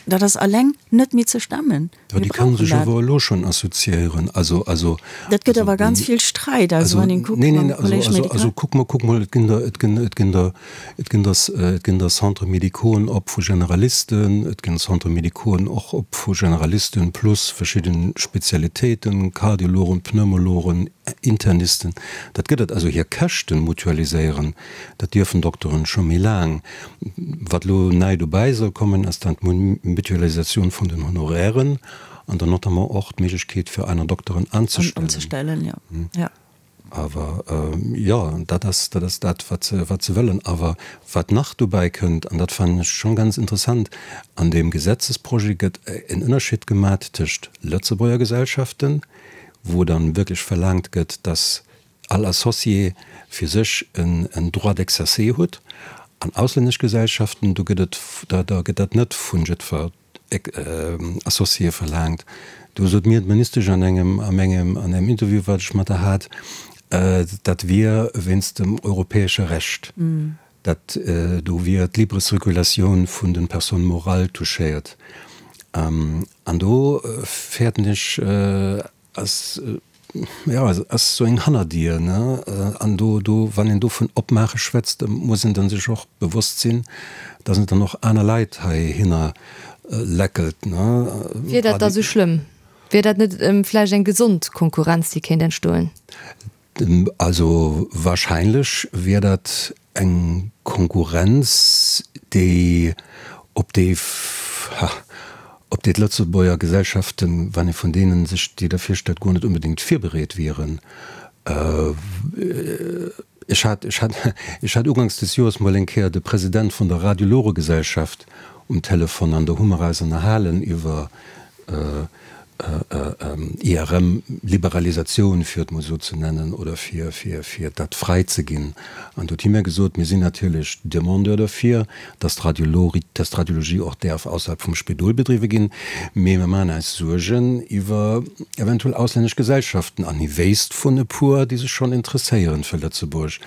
Dat ass alleng net méi ze stemmen. Jo, déi kënne sech awer elo schonn assoziéieren. Also, also. Dat gëtt awer ganz vill Sträit, also wann een kuckt mam Collège médical. Also kuck mol, kuck mol, et ginn der, et ginn, et ginn der, et ginn der, et ginn der Centres médicauxen op vu Generalisten, et ginn Centres médicauxen och op vu Generalisten plus verschidde Spezialitéiten, Kardiologen, Pneumologen, Internisten. Dat gëtt et. Also hir Käschten mutualiséieren, dat dierfen Dokteren scho méi laang. Wat elo nei dobäi soll kommen, ass dann d'Mutualisatioun vun den Honorairen an dann notamment och d'Méiglechkeet fir aner Dokteren anzestellen. Anzestellen, jo. Jo. Awer jo, dat ass, dat ass dat, wat se, wat se wëllen. Awer wat nach dobäi kënnt, an dat fannen ech schonn ganz interessant, an deem Gesetzesprojet gëtt en Ënnerscheed gemat tëscht Lëtzebuerger Gesellschaften, wou dann wierklech verlaangt gëtt, dass all Associé fir sech en Droit d'exercer huet, an auslännesch Gesellschaften, do gëtt et, da gëtt dat net vu jiddwer Associé verlaangt. Do sot mir d'Ministesch an engem, an engem, an engem Interview, wat ech mat der hat, dat wier wéinst dem europäesche Recht, dat do wier d'libre Circulatioun vun de Personnes morales touchéiert. An do fäerten ech, Ass, jo, ass esou eng Hannerdier, ne? An do, do, wann een do vun opmaache schwätzt, da muss een dann sech och bewosst sinn, dass et dann och aner Leit heihinner läckelt, ne? Wier dat da sou schlëmm? Wier dat net vläicht eng gesond Konkurrenz, déi kéint entstoen? Also wahrscheinlech wier dat eng Konkurrenz, déi op déi, ha, op déi d'Lëtzebuerger Gesellschaften, wann ee vun deenen sech déi da virstellt, guer net onbedéngt virbereet wieren. Ech hat, ech hat, ech hat uganks des Joers mol eng Kéier de President vun der Radiologegesellschaft um Telefon an do hu mer eis ënnerhalen iwwer, IRM, Liberalisatioun, fir et mol esou ze nennen, oder fir, fir, fir dat fräi ze ginn. An do huet hie mir gesot, Mir sinn natierlech Demandeur derfir, dass d'Radiologie, dass d'Radiologie och däerf ausserhalb vum Spidol bedriwwe ginn, mee mir maachen eis Suergen iwwer eventuell auslännesch Gesellschaften. An hie wéisst vun e puer, déi sech schonn interesséieren fir Lëtzebuerg.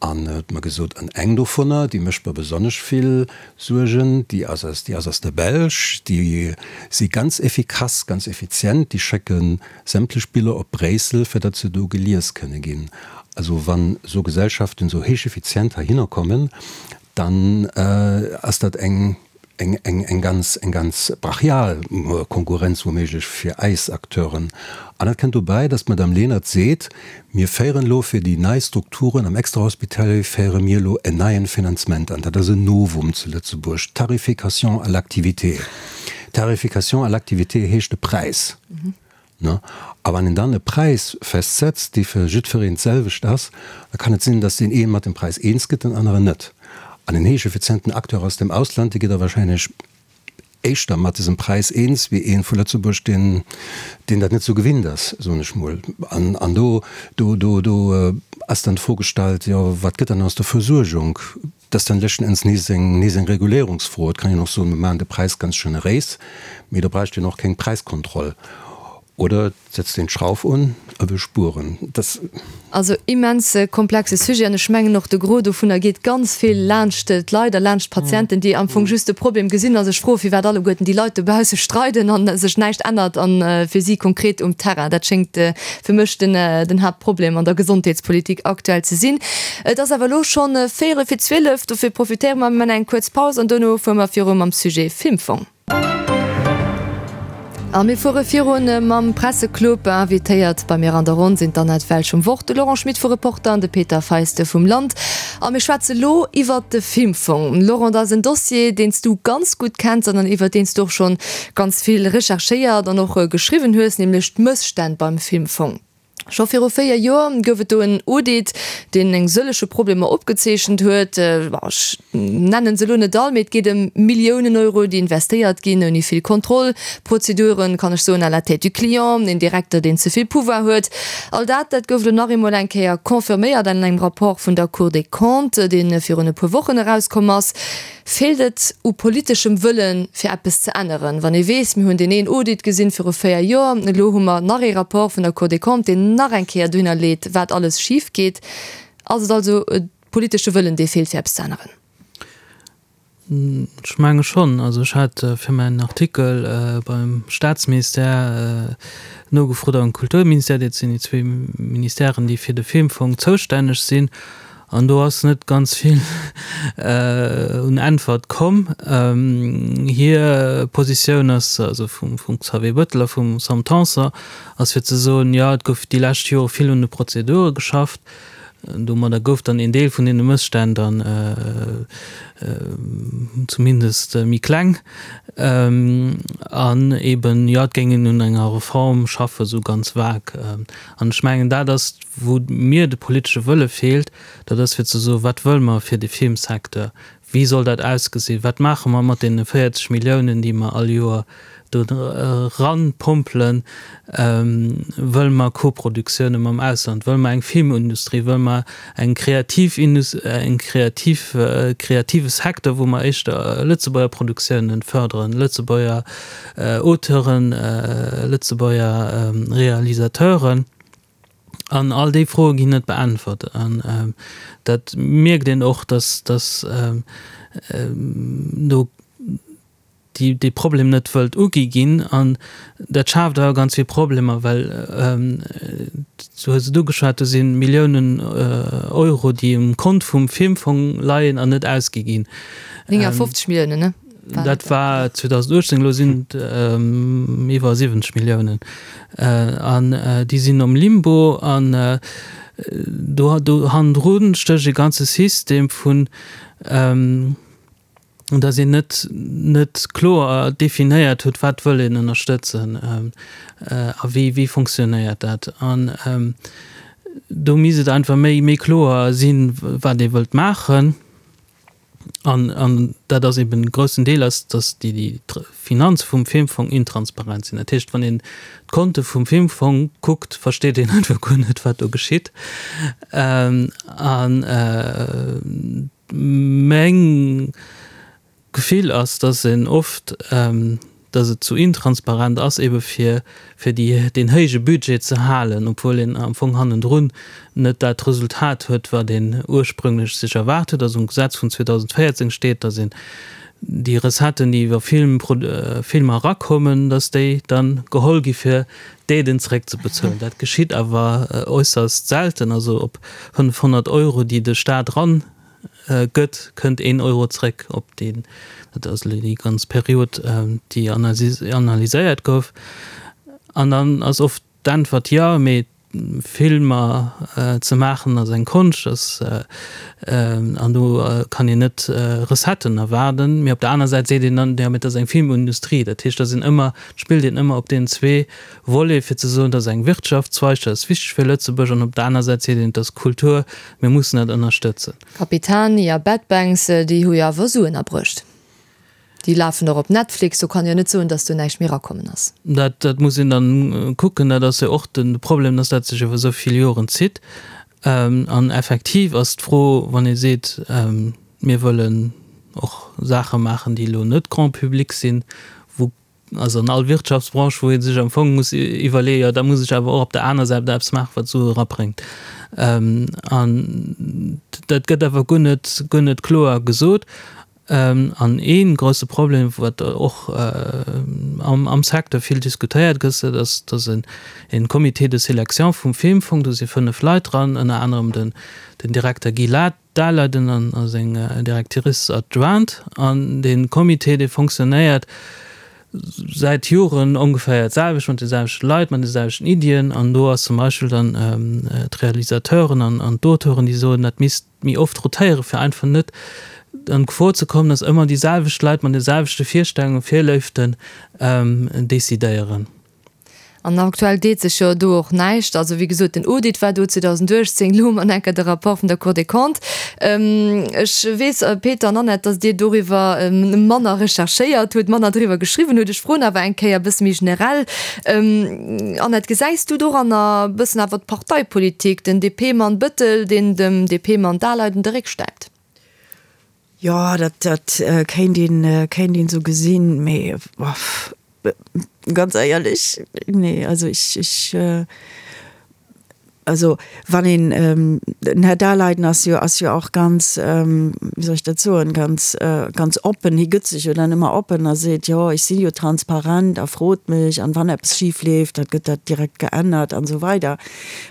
An huet mer gesot, an eng dovunner, déi mécht mer besonnesch vill Suergen, déi ass aus, déi ass aus der Belsch, déi si ganz effikass, ganz effizient, déi schécke sämtlech Biller op Bréissel, fir datt se do gelies kënne ginn. Also wann esou Gesellschaften esou héich effizient heihinner kommen, dann ass dat eng, eng, eng, eng ganz, eng ganz brachial Konkurrenz wouméiglech fir eis Acteuren. An dat kënnt dobäi, datt d'Madame Lenert seet, Mir féieren elo fir déi nei Strukturen am Extrahospitalier féiere mir elo en neien Finanzement an. Dat ass en Novum zu Lëtzebuerg, d'Tarification à l'activité. Tarification à l'activité heescht e Präis. Ne? A wann een dann e Präis festsetzt, dee fir jiddfereen d'selwecht ass, da kann et sinn, datt deen ee mat dem Präis eens gëtt, den aneren net. An en héich effizienten Acteur aus dem Ausland, dee gëtt da wahrscheinlech éischter mat dësem Präis eens wéi ee vu Lëtzebuerg, deen, deen dat net esou gewinnt ass, soen ech mol. An, an do, do, do, do ass dann d'Fro gestallt, jo, wat gëtt dann aus der Versuergung? Dat ass dann leschten Enns nees eng, nees eng Reguléierungsfro. Et kann een och soen, mir maachen de Präis ganz generéis, mee da bräicht een och keng Präiskontroll. Oder et setzt een d'Schrauf un a wëll spueren. Dat. Also immens komplexe Sujet an ech mengen och de Gros dovunner geet ganz vill laanscht d'Leit a laanscht d'Patienten, déi am Fong just de Problem gesinn a sech froen, firwat alleguerten déi Leit dobausse streiden a sech näischt ännert a fir si konkret um Terrain. Dat schéngt fir mech den den Haaptproblem an der Gesondheetspolitik aktuell ze sinn. Et ass awer elo schonn véierel fir 12, dofir profitéiere mer, mir maachen eng kuerz Paus an dono fuere mer viru mam Sujet Filmfong. A mir fuere virun mam Presseclub. Invitéiert bei mir an der Ronn sinn d'Annette Welsch vum Wort, de Laurent Schmit vu Reporter an de Peter Feiste vum Land. A mir schwätze lo iwwert de Filmfong. Laurent, dat ass en Dossier, deen s du ganz gutt kenns an iwwert deen s du och schonn ganz vill recherchéiert an och geschriwwen hues, nämlech d'Mësstänn beim Filmfong. Scho viru 4 Joer gouf et do en Audit, deen eng sëllege Problemer opgezeechent huet. Ech nennen se elo net all, mee et geet ëm Milliounen Euro, déi investéiert ginn ouni vill Kontroll, Prozeduren, kann ech soen, à la tête du client, een Direkter, deen ze vill Pouvoir huet. All dat, dat gouf elo nach eemol eng Kéier confirméiert an engem Rapport vun der Cour des Comptes, dee virun e puer Wochen erauskomm ass. Feelt et u politeschem Wëllen, fir eppes ze änneren? Wann ee weess, mir hunn deen een Audit gesinn viru 4 Joer, elo hu mer nach ee Rapport vun der Cour des Comptes, deen nach eng Kéier dohinner leet, wat alles schif geet. Ass et also e politesche Wëllen, dee feelt, fir eppes ze änneren? Ech menge schonn. Also ech hat fir mäin Artikel beim Staatsministère nogefrot am Kulturministère, dat sinn déi zwee Ministèren, déi fir de Filmfong zoustänneg sinn. An do ass net ganz vill un Äntwert komm. Hir Positioun ass, also vum Xavier Bettel a vum Sam Tanson, ass fir ze soen, jo et gouf déi lescht Jore vill un de Prozedure geschafft. Domadder gouf dann een Deel vun deene Mësstänn dann zumindest méi kleng. An eben, jo, et géing een un enger Reform schaffen, esou ganz vag. An ech mengen, dat ass, wou mir de politesche Wëlle feelt, dat ass fir ze soen, wat wëlle mer fir de Filmsecteur? Wéi soll dat ausgesinn? Wat maache mer mat deene 40 Milliounen, déi mer all Joer do eranpompelen? Wëlle mer Koproduktioune mam Ausland? Wëlle mer eng Filmindustrie? Wëlle mer eng kreativ, eng kreativ, kreative Secteur, wou mer éischter Lëtzebuerger Produktiounen fërderen, Lëtzebuerger Auteuren, Lëtzebuerger Realisateuren? An all déi Froe ginn net beäntwert. An dat mierkt een och, datt datt do déi dee Problem net wëllt ugi ginn. An dat schaaft awer ganz vill Problemer, well, du hues et ugeschwat, do si Milliounen Euro, déi um Kont vum Filmfong leien an net ausgi ginn. 59 Milliounen, ne? Dat war 2018, elo sinn et iwwer 70 Milliounen. An déi sinn am Limbo an do do hannendru stécht e ganze System vun, datt een net net kloer definéiert huet, wat wëll een ënnerstëtzen a wéi wéi fonctionnéiert dat. An do misst et einfach méi méi kloer sinn, wat ee wëllt maachen. An, an dat ass eben e groussen Deel ass, datt déi, déi Finanze vum Filmfong intransparent sinn. Dat heescht, wann een d'Konte vum Filmfong kuckt, versteet een einfach guer net, wat do geschitt. An meng Gefill ass, datt een oft, datt et zu intransparent ass, ebe fir fir déi deen héije Budget ze halen, obwuel een am Fong hannendrun net dat Resultat huet, wat een ursprünglech sech erwaart huet. Also am Gesetz vun 2014 steet, datt een déi Recetten, déi iwwer Film Filmer erakommen, datt déi da geholl gi fir d'Aiden zeréckzebezuelen. Dat geschitt awer äusserst selten. Also op 500 Euro, déi de Staat eran gëtt, kënnt een Euro zréck op deen, dat ass elo déi ganz Period, déi analyséiert gouf. An dann ass oft d'Äntwert, jo, mee Filmer ze maachen ass eng Konscht, ass, an do kann een net Recetten erwaarden. Mee op der aner Säit seet een dann, jo, mee et ass eng Filmindustrie. Dat heescht, et ass een ëmmer, et spillt een ëmmer op deenen zwee Volet, fir ze soen, et ass eng Wirtschaftszweig, dat ass wichteg fir Lëtzebuerg, an op der aner Säit seet een, et ass Kultur, Mir mussen dat ënnerstëtzen. Capitani a Bad Banks, déi hu jo awer Suen abruecht. Déi lafen och op Netflix, do kann een jo net soen, datt do näischt méi erakommen ass. Dat, dat muss een dann kucken. Dat ass jo och de Problem, datt dat sech iwwer esou vill Joren zitt. An effektiv ass d'Fro, wann ee seet, mir wëllen och Saache maachen, déi elo net Grand public sinn, wou Also an all Wirtschaftsbranche, wou ee sech am Fong muss iwwerleeën, jo da muss ech awer och op der aner Säit eppes maachen, wat Sue erabréngt. An dat gëtt awer guer net, guer net kloer gesot. An ee grousse Problem, wat och am Secteur vill diskutéiert gëtt, dat ass, datt en Comité de sélection vum Filmfong, do si 5 Leit dran, ënner anerem den Direkter Guy Laet, Daleiden an a seng Directrice adjointe an dee Comité dee fonctionnéiert säit Joren ongeféier d'selwecht, mat de selwechte Leit, mat de selwechten Iddien an do ass zum Beispill dann d'Realisateuren an an d'Auteuren déi soen, dat misst méi oft rotéiere fir einfach net an d'Gefor ze kommen, datt ëmmer déi selwecht Leit mat de selwechte Virstellungen, Virléiften decidéieren. An aktuell deet sech jo do och näischt. Also wéi gesot, den Audit war do 2018, elo hu mer enker de Rapport vun der Cour des Comptes. Ech weess, Peter an Annette, datt Dir doriwwer manner recherchéiert hutt, manner driwwer geschriwwen hutt. Ech froen awer eng Kéier e bësse méi generell, Annette, gesäis du doranner e bëssen awer d'Parteipolitik, den DP-Mann Bëttel, deen dem DP-Mann Daleiden de Réck stäipt? Jo, dat, dat kéint een, kéint een esou gesinn, mee ganz éierlech, nee, also ech, ech. Also wann een, den Här Daleiden ass jo, ass jo och ganz, wéi soll ech dat soen, ganz, ganz oppen, hie gëtt sech jo dann ëmmer oppen a seet, jo ech si jo transparent a frot mech an wann eppes schif leeft, da gëtt dat direkt geännert an esou weider.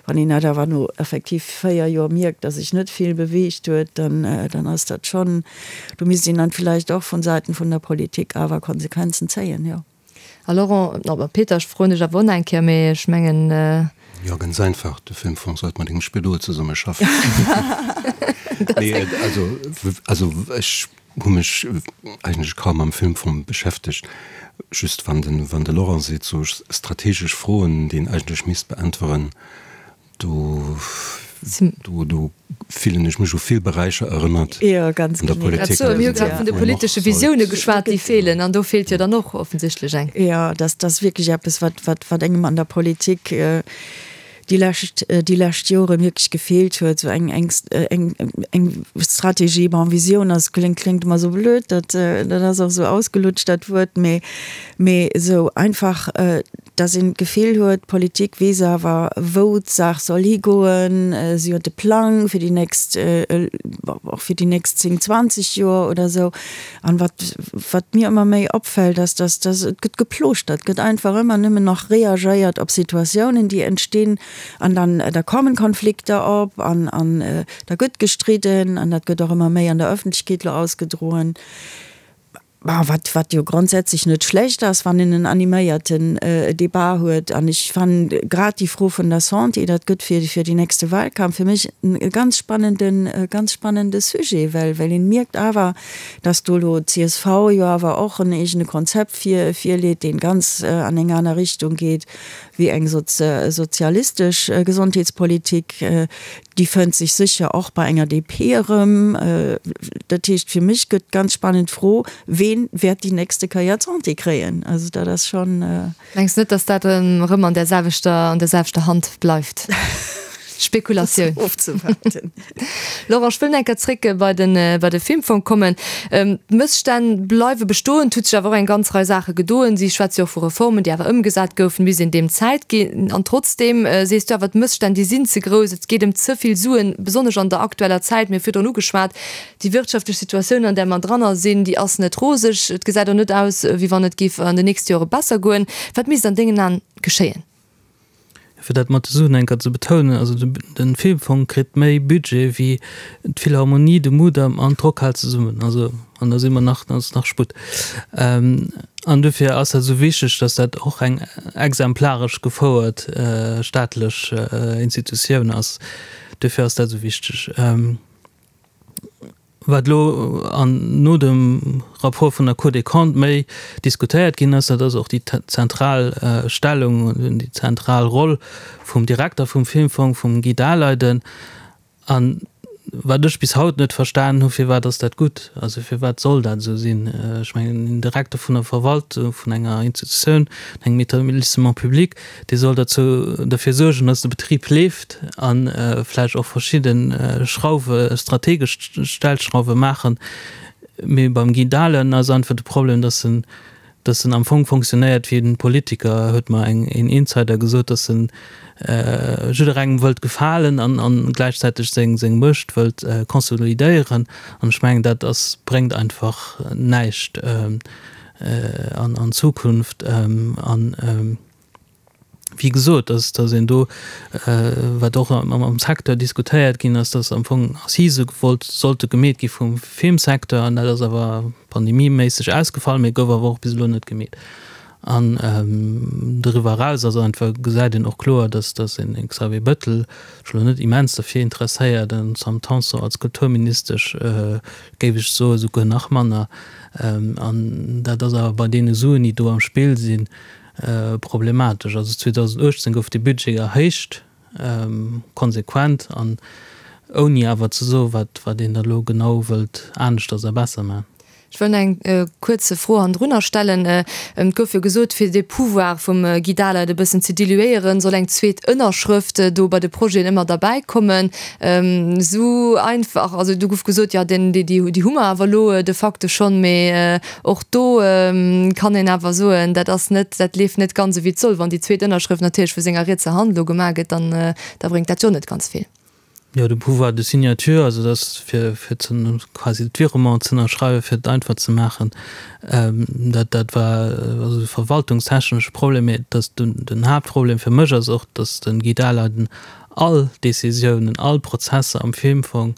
Wann een dat awer no effektiv 4 Joer mierkt, datt sech net vill beweegt huet, dann, dann ass dat schonn, do misst een dann villäicht och vun Säiten vun der Politik awer Konsequenzen zéien, jo. A Laurent, oh Peter, ech froen dech awer och nach eng Kéier, mee ech mengen. Jo, ganz einfach, de Filmfong sollt mat engem Spidol zesummeschaffen. Nee, also, also ech hu mech eigentlech kaum mam Filmfong beschäftegt. Just wann den, wann de Laurent seet, sou strategesch Froen, déi een eigentlech misst beäntweren, do, do, do fillen ech mech u vill Beräicher erënnert Jo, ganz an der genee. Politik. Grad sou, mir hu grad vun de politesche Visioune geschwat, déi feelen, an do feelt jo dann och offensichtlech eng. Jo, dat ass wierklech eppes, wat, wat, wat engem an der Politik déi lescht, déi lescht Joren wierklech gefeelt huet, esou eng, eng, eng, eng Strategie. Bon, Visioun ass, kléngt, kléngt ëmmer esou blöd, dat, dat ass och esou ausgelutscht, dat Wuert, mee, mee esou einfach, dass een d'Gefill huet, d'Politik weess awer, wou d'Saach soll higoen, si huet e Plang fir déi nächst, och fir déi nächst 10, 20 Joer oder esou. An wat, wat mir ëmmer méi opfält, ass, dass, dass et gëtt geplooschtert, et gëtt einfach ëmmer nëmmen nach reagéiert op Situatiounen, déi entstinn, an dann, da kommen Konflikter op an, an da gëtt gestridden an dat gëtt och ëmmer méi an der Öffentlechkeet elo ausgedroen. Wat, wat jo grondsätzlech net schlecht ass, wann een en animéierten Debat huet. An ech fannen grad déi Fro vun der Santé, dat gëtt fir, fir déi nächste Wahlkampf fir mech e ganz spannenden, e ganz spannende Sujet, well, well een mierkt awer, dass do elo d'CSV jo awer och en eegene Konzept vir, virleet, deen ganz an eng aner Richtung geet wéi eng sozialistesch Gesondheetspolitik. Déi fënnt sech sécher och bei enger DP erëm. Dat heescht, fir mech gëtt d'ganz spannend Fro, Ween wäert déi nächste Kéier d'Santé kréien? Also dat ass schonn. Mengs net, datt dat erëm an där selwechter, an där selwechter Hand bleift? Spekulatioun. Ofzewaarden. Laurent, ech wëll nach eng Kéier zréck bei de, bei de Filmfong kommen. D'Mësstänn bleiwe bestoen, et huet sech awer och eng ganz Rei Saache gedoen. Si schwätze jo och vu Reformen, déi awer ëmgesat goufen, misst een deem Zäit ginn. An trotzdeem sees du awer, d'Mësstänn, déi sinn ze grouss, et geet ëm ze vill Suen, besonnesch an der aktueller Zäit. Mir hu virdrun ugeschwat, déi wirtschaftlech Situatioun, an där mer dranner sinn, déi ass net roseg. Et gesäit och net aus, wéi wann et géif an den nächste Jore besser goen. Wat misst an dengen Aen geschéien? Fir dat mat de Suen eng Kéier ze betounen, also de Filmfong kritt méi Budget wéi d'Philharmonie, de Mudam an d'Rockhal zesummen. Also, an da si mer nach, da ass nach Sputt. An dofir ass dat esou wichteg, datt dat och eng exemplaresch gefouert staatlech Institutioun ass. Dofir ass dat esou wichteg. Wat elo an no dem Rapport vun der Cour des Comptes méi diskutéiert ginn ass, dat ass och déi zentral Stellung, déi zentral Roll vum Direkter vum Filmfong, vum Guy Daleiden. A wat ech bis haut net verstanen hu, firwat ass dat gutt? Also firwat soll dat esou sinn? Ech mengen, en Direkter vun der Verwaltung vun enger Institutioun, engem Établissement public, dee soll derzou, derfir suergen, dass de Betrib leeft a vläicht och verschidde Schrauwe, strategesch Stellschrauwe maachen. Mee beim Guy Dahlen ass einfach de Problem, dass en, dass en am Fong fonctionnéiert wéi en Politiker, huet mer eng, een Insider gesot, dass en jidderengem wëllt gefalen an, an gläichzäiteg seng, seng Muecht wëllt consolidéieren. An ech mengen, dat ass, bréngt einfach näischt an, an Zukunft. An wéi gesot, dass, dass een do, wat och am Secteur diskutéiert ginn ass, dass am Fong Assisë gewollt sollte gemeet gi vum Filmsecteur, an dat ass awer pandemieméisseg ausgefall, mee gouf awer och bis elo net gemeet. An doriwwer eraus ass einfach, gesäit een och kloer, dass, dass een Xavier Bettel sech elo net immens derfir interesséiert, an d'Sam Tanson als Kulturministesch, géif ech soen, souguer nach manner. An dat ass awer bei deene Suen, déi do am Spill sinn, problematesch. Also 2018 gouf de Budget erhéicht, konsequent an ouni awer ze soen, wat wat een da elo genau wëllt aneschters a besser maachen. Ech wëll nach eng kuerz Fro hannendrunner stellen. Et gouf jo gesot, fir de Pouvoir vum Guy Dahleid e bëssen ze diluéieren, soll eng zweet Ënnerschrëft do bei de Projeten ëmmer derbäi kommen. Esou einfach, also do gouf gesot, jo deen, déi, déi hu mer awer elo de facto schonn, mee och do kann een awer soen, dat ass net, dat leeft net ganz esou wéi et soll. Wann déi zweet Ënnerschrëft natierlech vu senger rietser Hand elo gemaach gëtt, dann da bréngt dat jo net ganz vill. Jo, de Pouvoir de signature, also dass fir, fir ze, quasi d'Virement ze ënnerschreiwen, fir et einfach ze maachen, dat, dat war also e verwaltungstechnesche Problem. Mä dass den, den Haaptproblem fir mech ass och, dass de Guy Dahleiden all Décisiounen, all Prozesser am Filmfong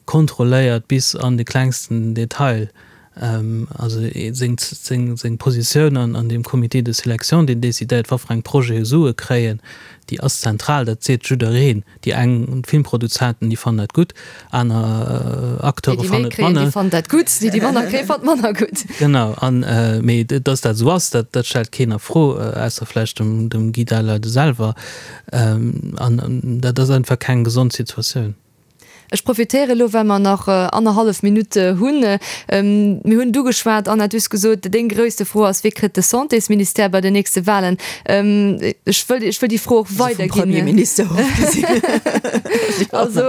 kontrolléiert bis an de klengsten Detail. Also seng, seng, seng Positioun an, an deem Comité de sélection, deen decidéiert, wat fir eng Projete Sue kréien, déi ass zentral, dat seet jiddereen. Déi eng Filmproduzenten, déi fannen dat gutt, aner Acteure fannen et manner. Déi, déi méi kréien, déi fannen dat gutt, déi, déi manner kréien, fannen et manner gutt. Genau, an, mee dass dat esou ass, dat, dat stellt keen a Fro, ausser vläicht dem, dem Guy Dahleiden selwer. An dat ass einfach keng gesond Situatioun. Ech profitéiere elo, well mer nach annerhallef Minutt hunn. Mir hunn et ugeschwat, Anna, du hues gesot, deng gréisste Fro ass, Wie kritt de Santésministère bei den nächste Wahlen? Ech wëll, ech wëll déi Fro och weiderginn. Also vum Premierminister ofgesinn. Also,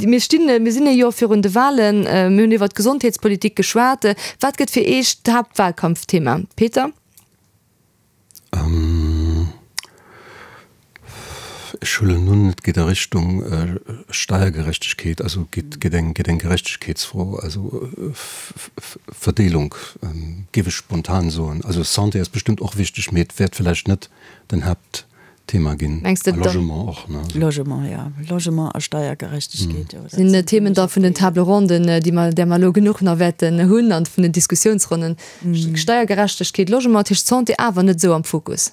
mir stinn, mir sinn e Joer virun de Wahlen. Mir hunn iwwert d'Gesondheetspolitik geschwat. Wat gëtt fir Iech d'Haaptwahlkampfthema? Peter? Ech huelen un, et geet a Richtung Steiergerechtegkeet, also geet eng Gerechtegkeetsfro, also Verdeelung, géif ech spontan soen. Also Santé ass bestëmmt och wichteg, mee et wäert vläicht net den Haaptthema ginn. Mengs de A Logement och, ne? Logement, jo. Logement a Steiergerechtegkeet, jo. Dat sinn Themen da vun den Table ronden, déi mer, där mer elo genuch nach wäerten hunn, an vun den Diskussiounsronnen. Steiergerechtegkeet, Logement, dat heescht Santé awer net esou am Fokus?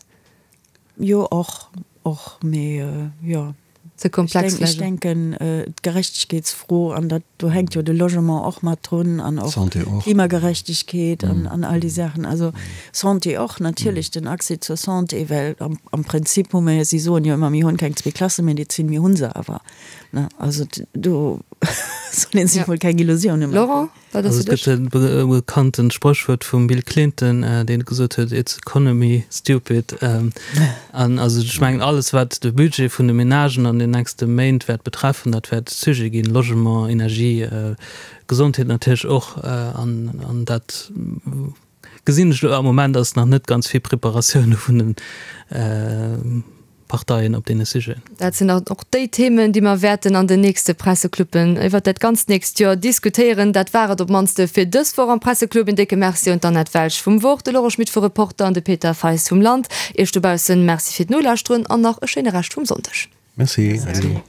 Jo, och, och, mee jo. Ze komplex vläicht. Ech denken, d'Gerechtegkeetsfro, an dat, do hänkt jo de Logement och mat drun an och Klimagerechtegkeet an, an all déi Saachen. Also Santé och natierlech, den Accès zur Santé, well am, am Prinzip hu mer jo, si soen jo ëmmer, mir hunn keng Zweeklassemedezin, mir hu se awer, ne. Also do soll ee sech mol keng Illusioune maachen. Laurent? Wat ass Also et gëtt e bekanntent Spréchwuert vum Bill Clinton, deen gesot huet, It's economy, stupid. An also ech mengen, alles wat de Budget vun de Menagen an den nächste Méint wäert betreffen, dat wäert Sujet ginn, Logement, Energie, Gesondheet natierlech och. An dat gesinn ech elo am Moment ass nach net ganz vill Preparatioune vun de Parteien op deene Sujeten. Dat sinn dann och déi Themen, déi mer wäerten an den nächste Pressecluben iwwert dat ganzt nächst Joer diskutéieren. Dat war et op d'mannst fir dës Woch am Presseclub. En décke Merci un d'Annette Welsch vum Wort, de Laurent Schmit vu Reporter an de Peter Feist vum Land. Iech dobaussen Merci fir d'Nolauschteren an nach e schéine Rescht vum Sonndeg. Merci. Merci.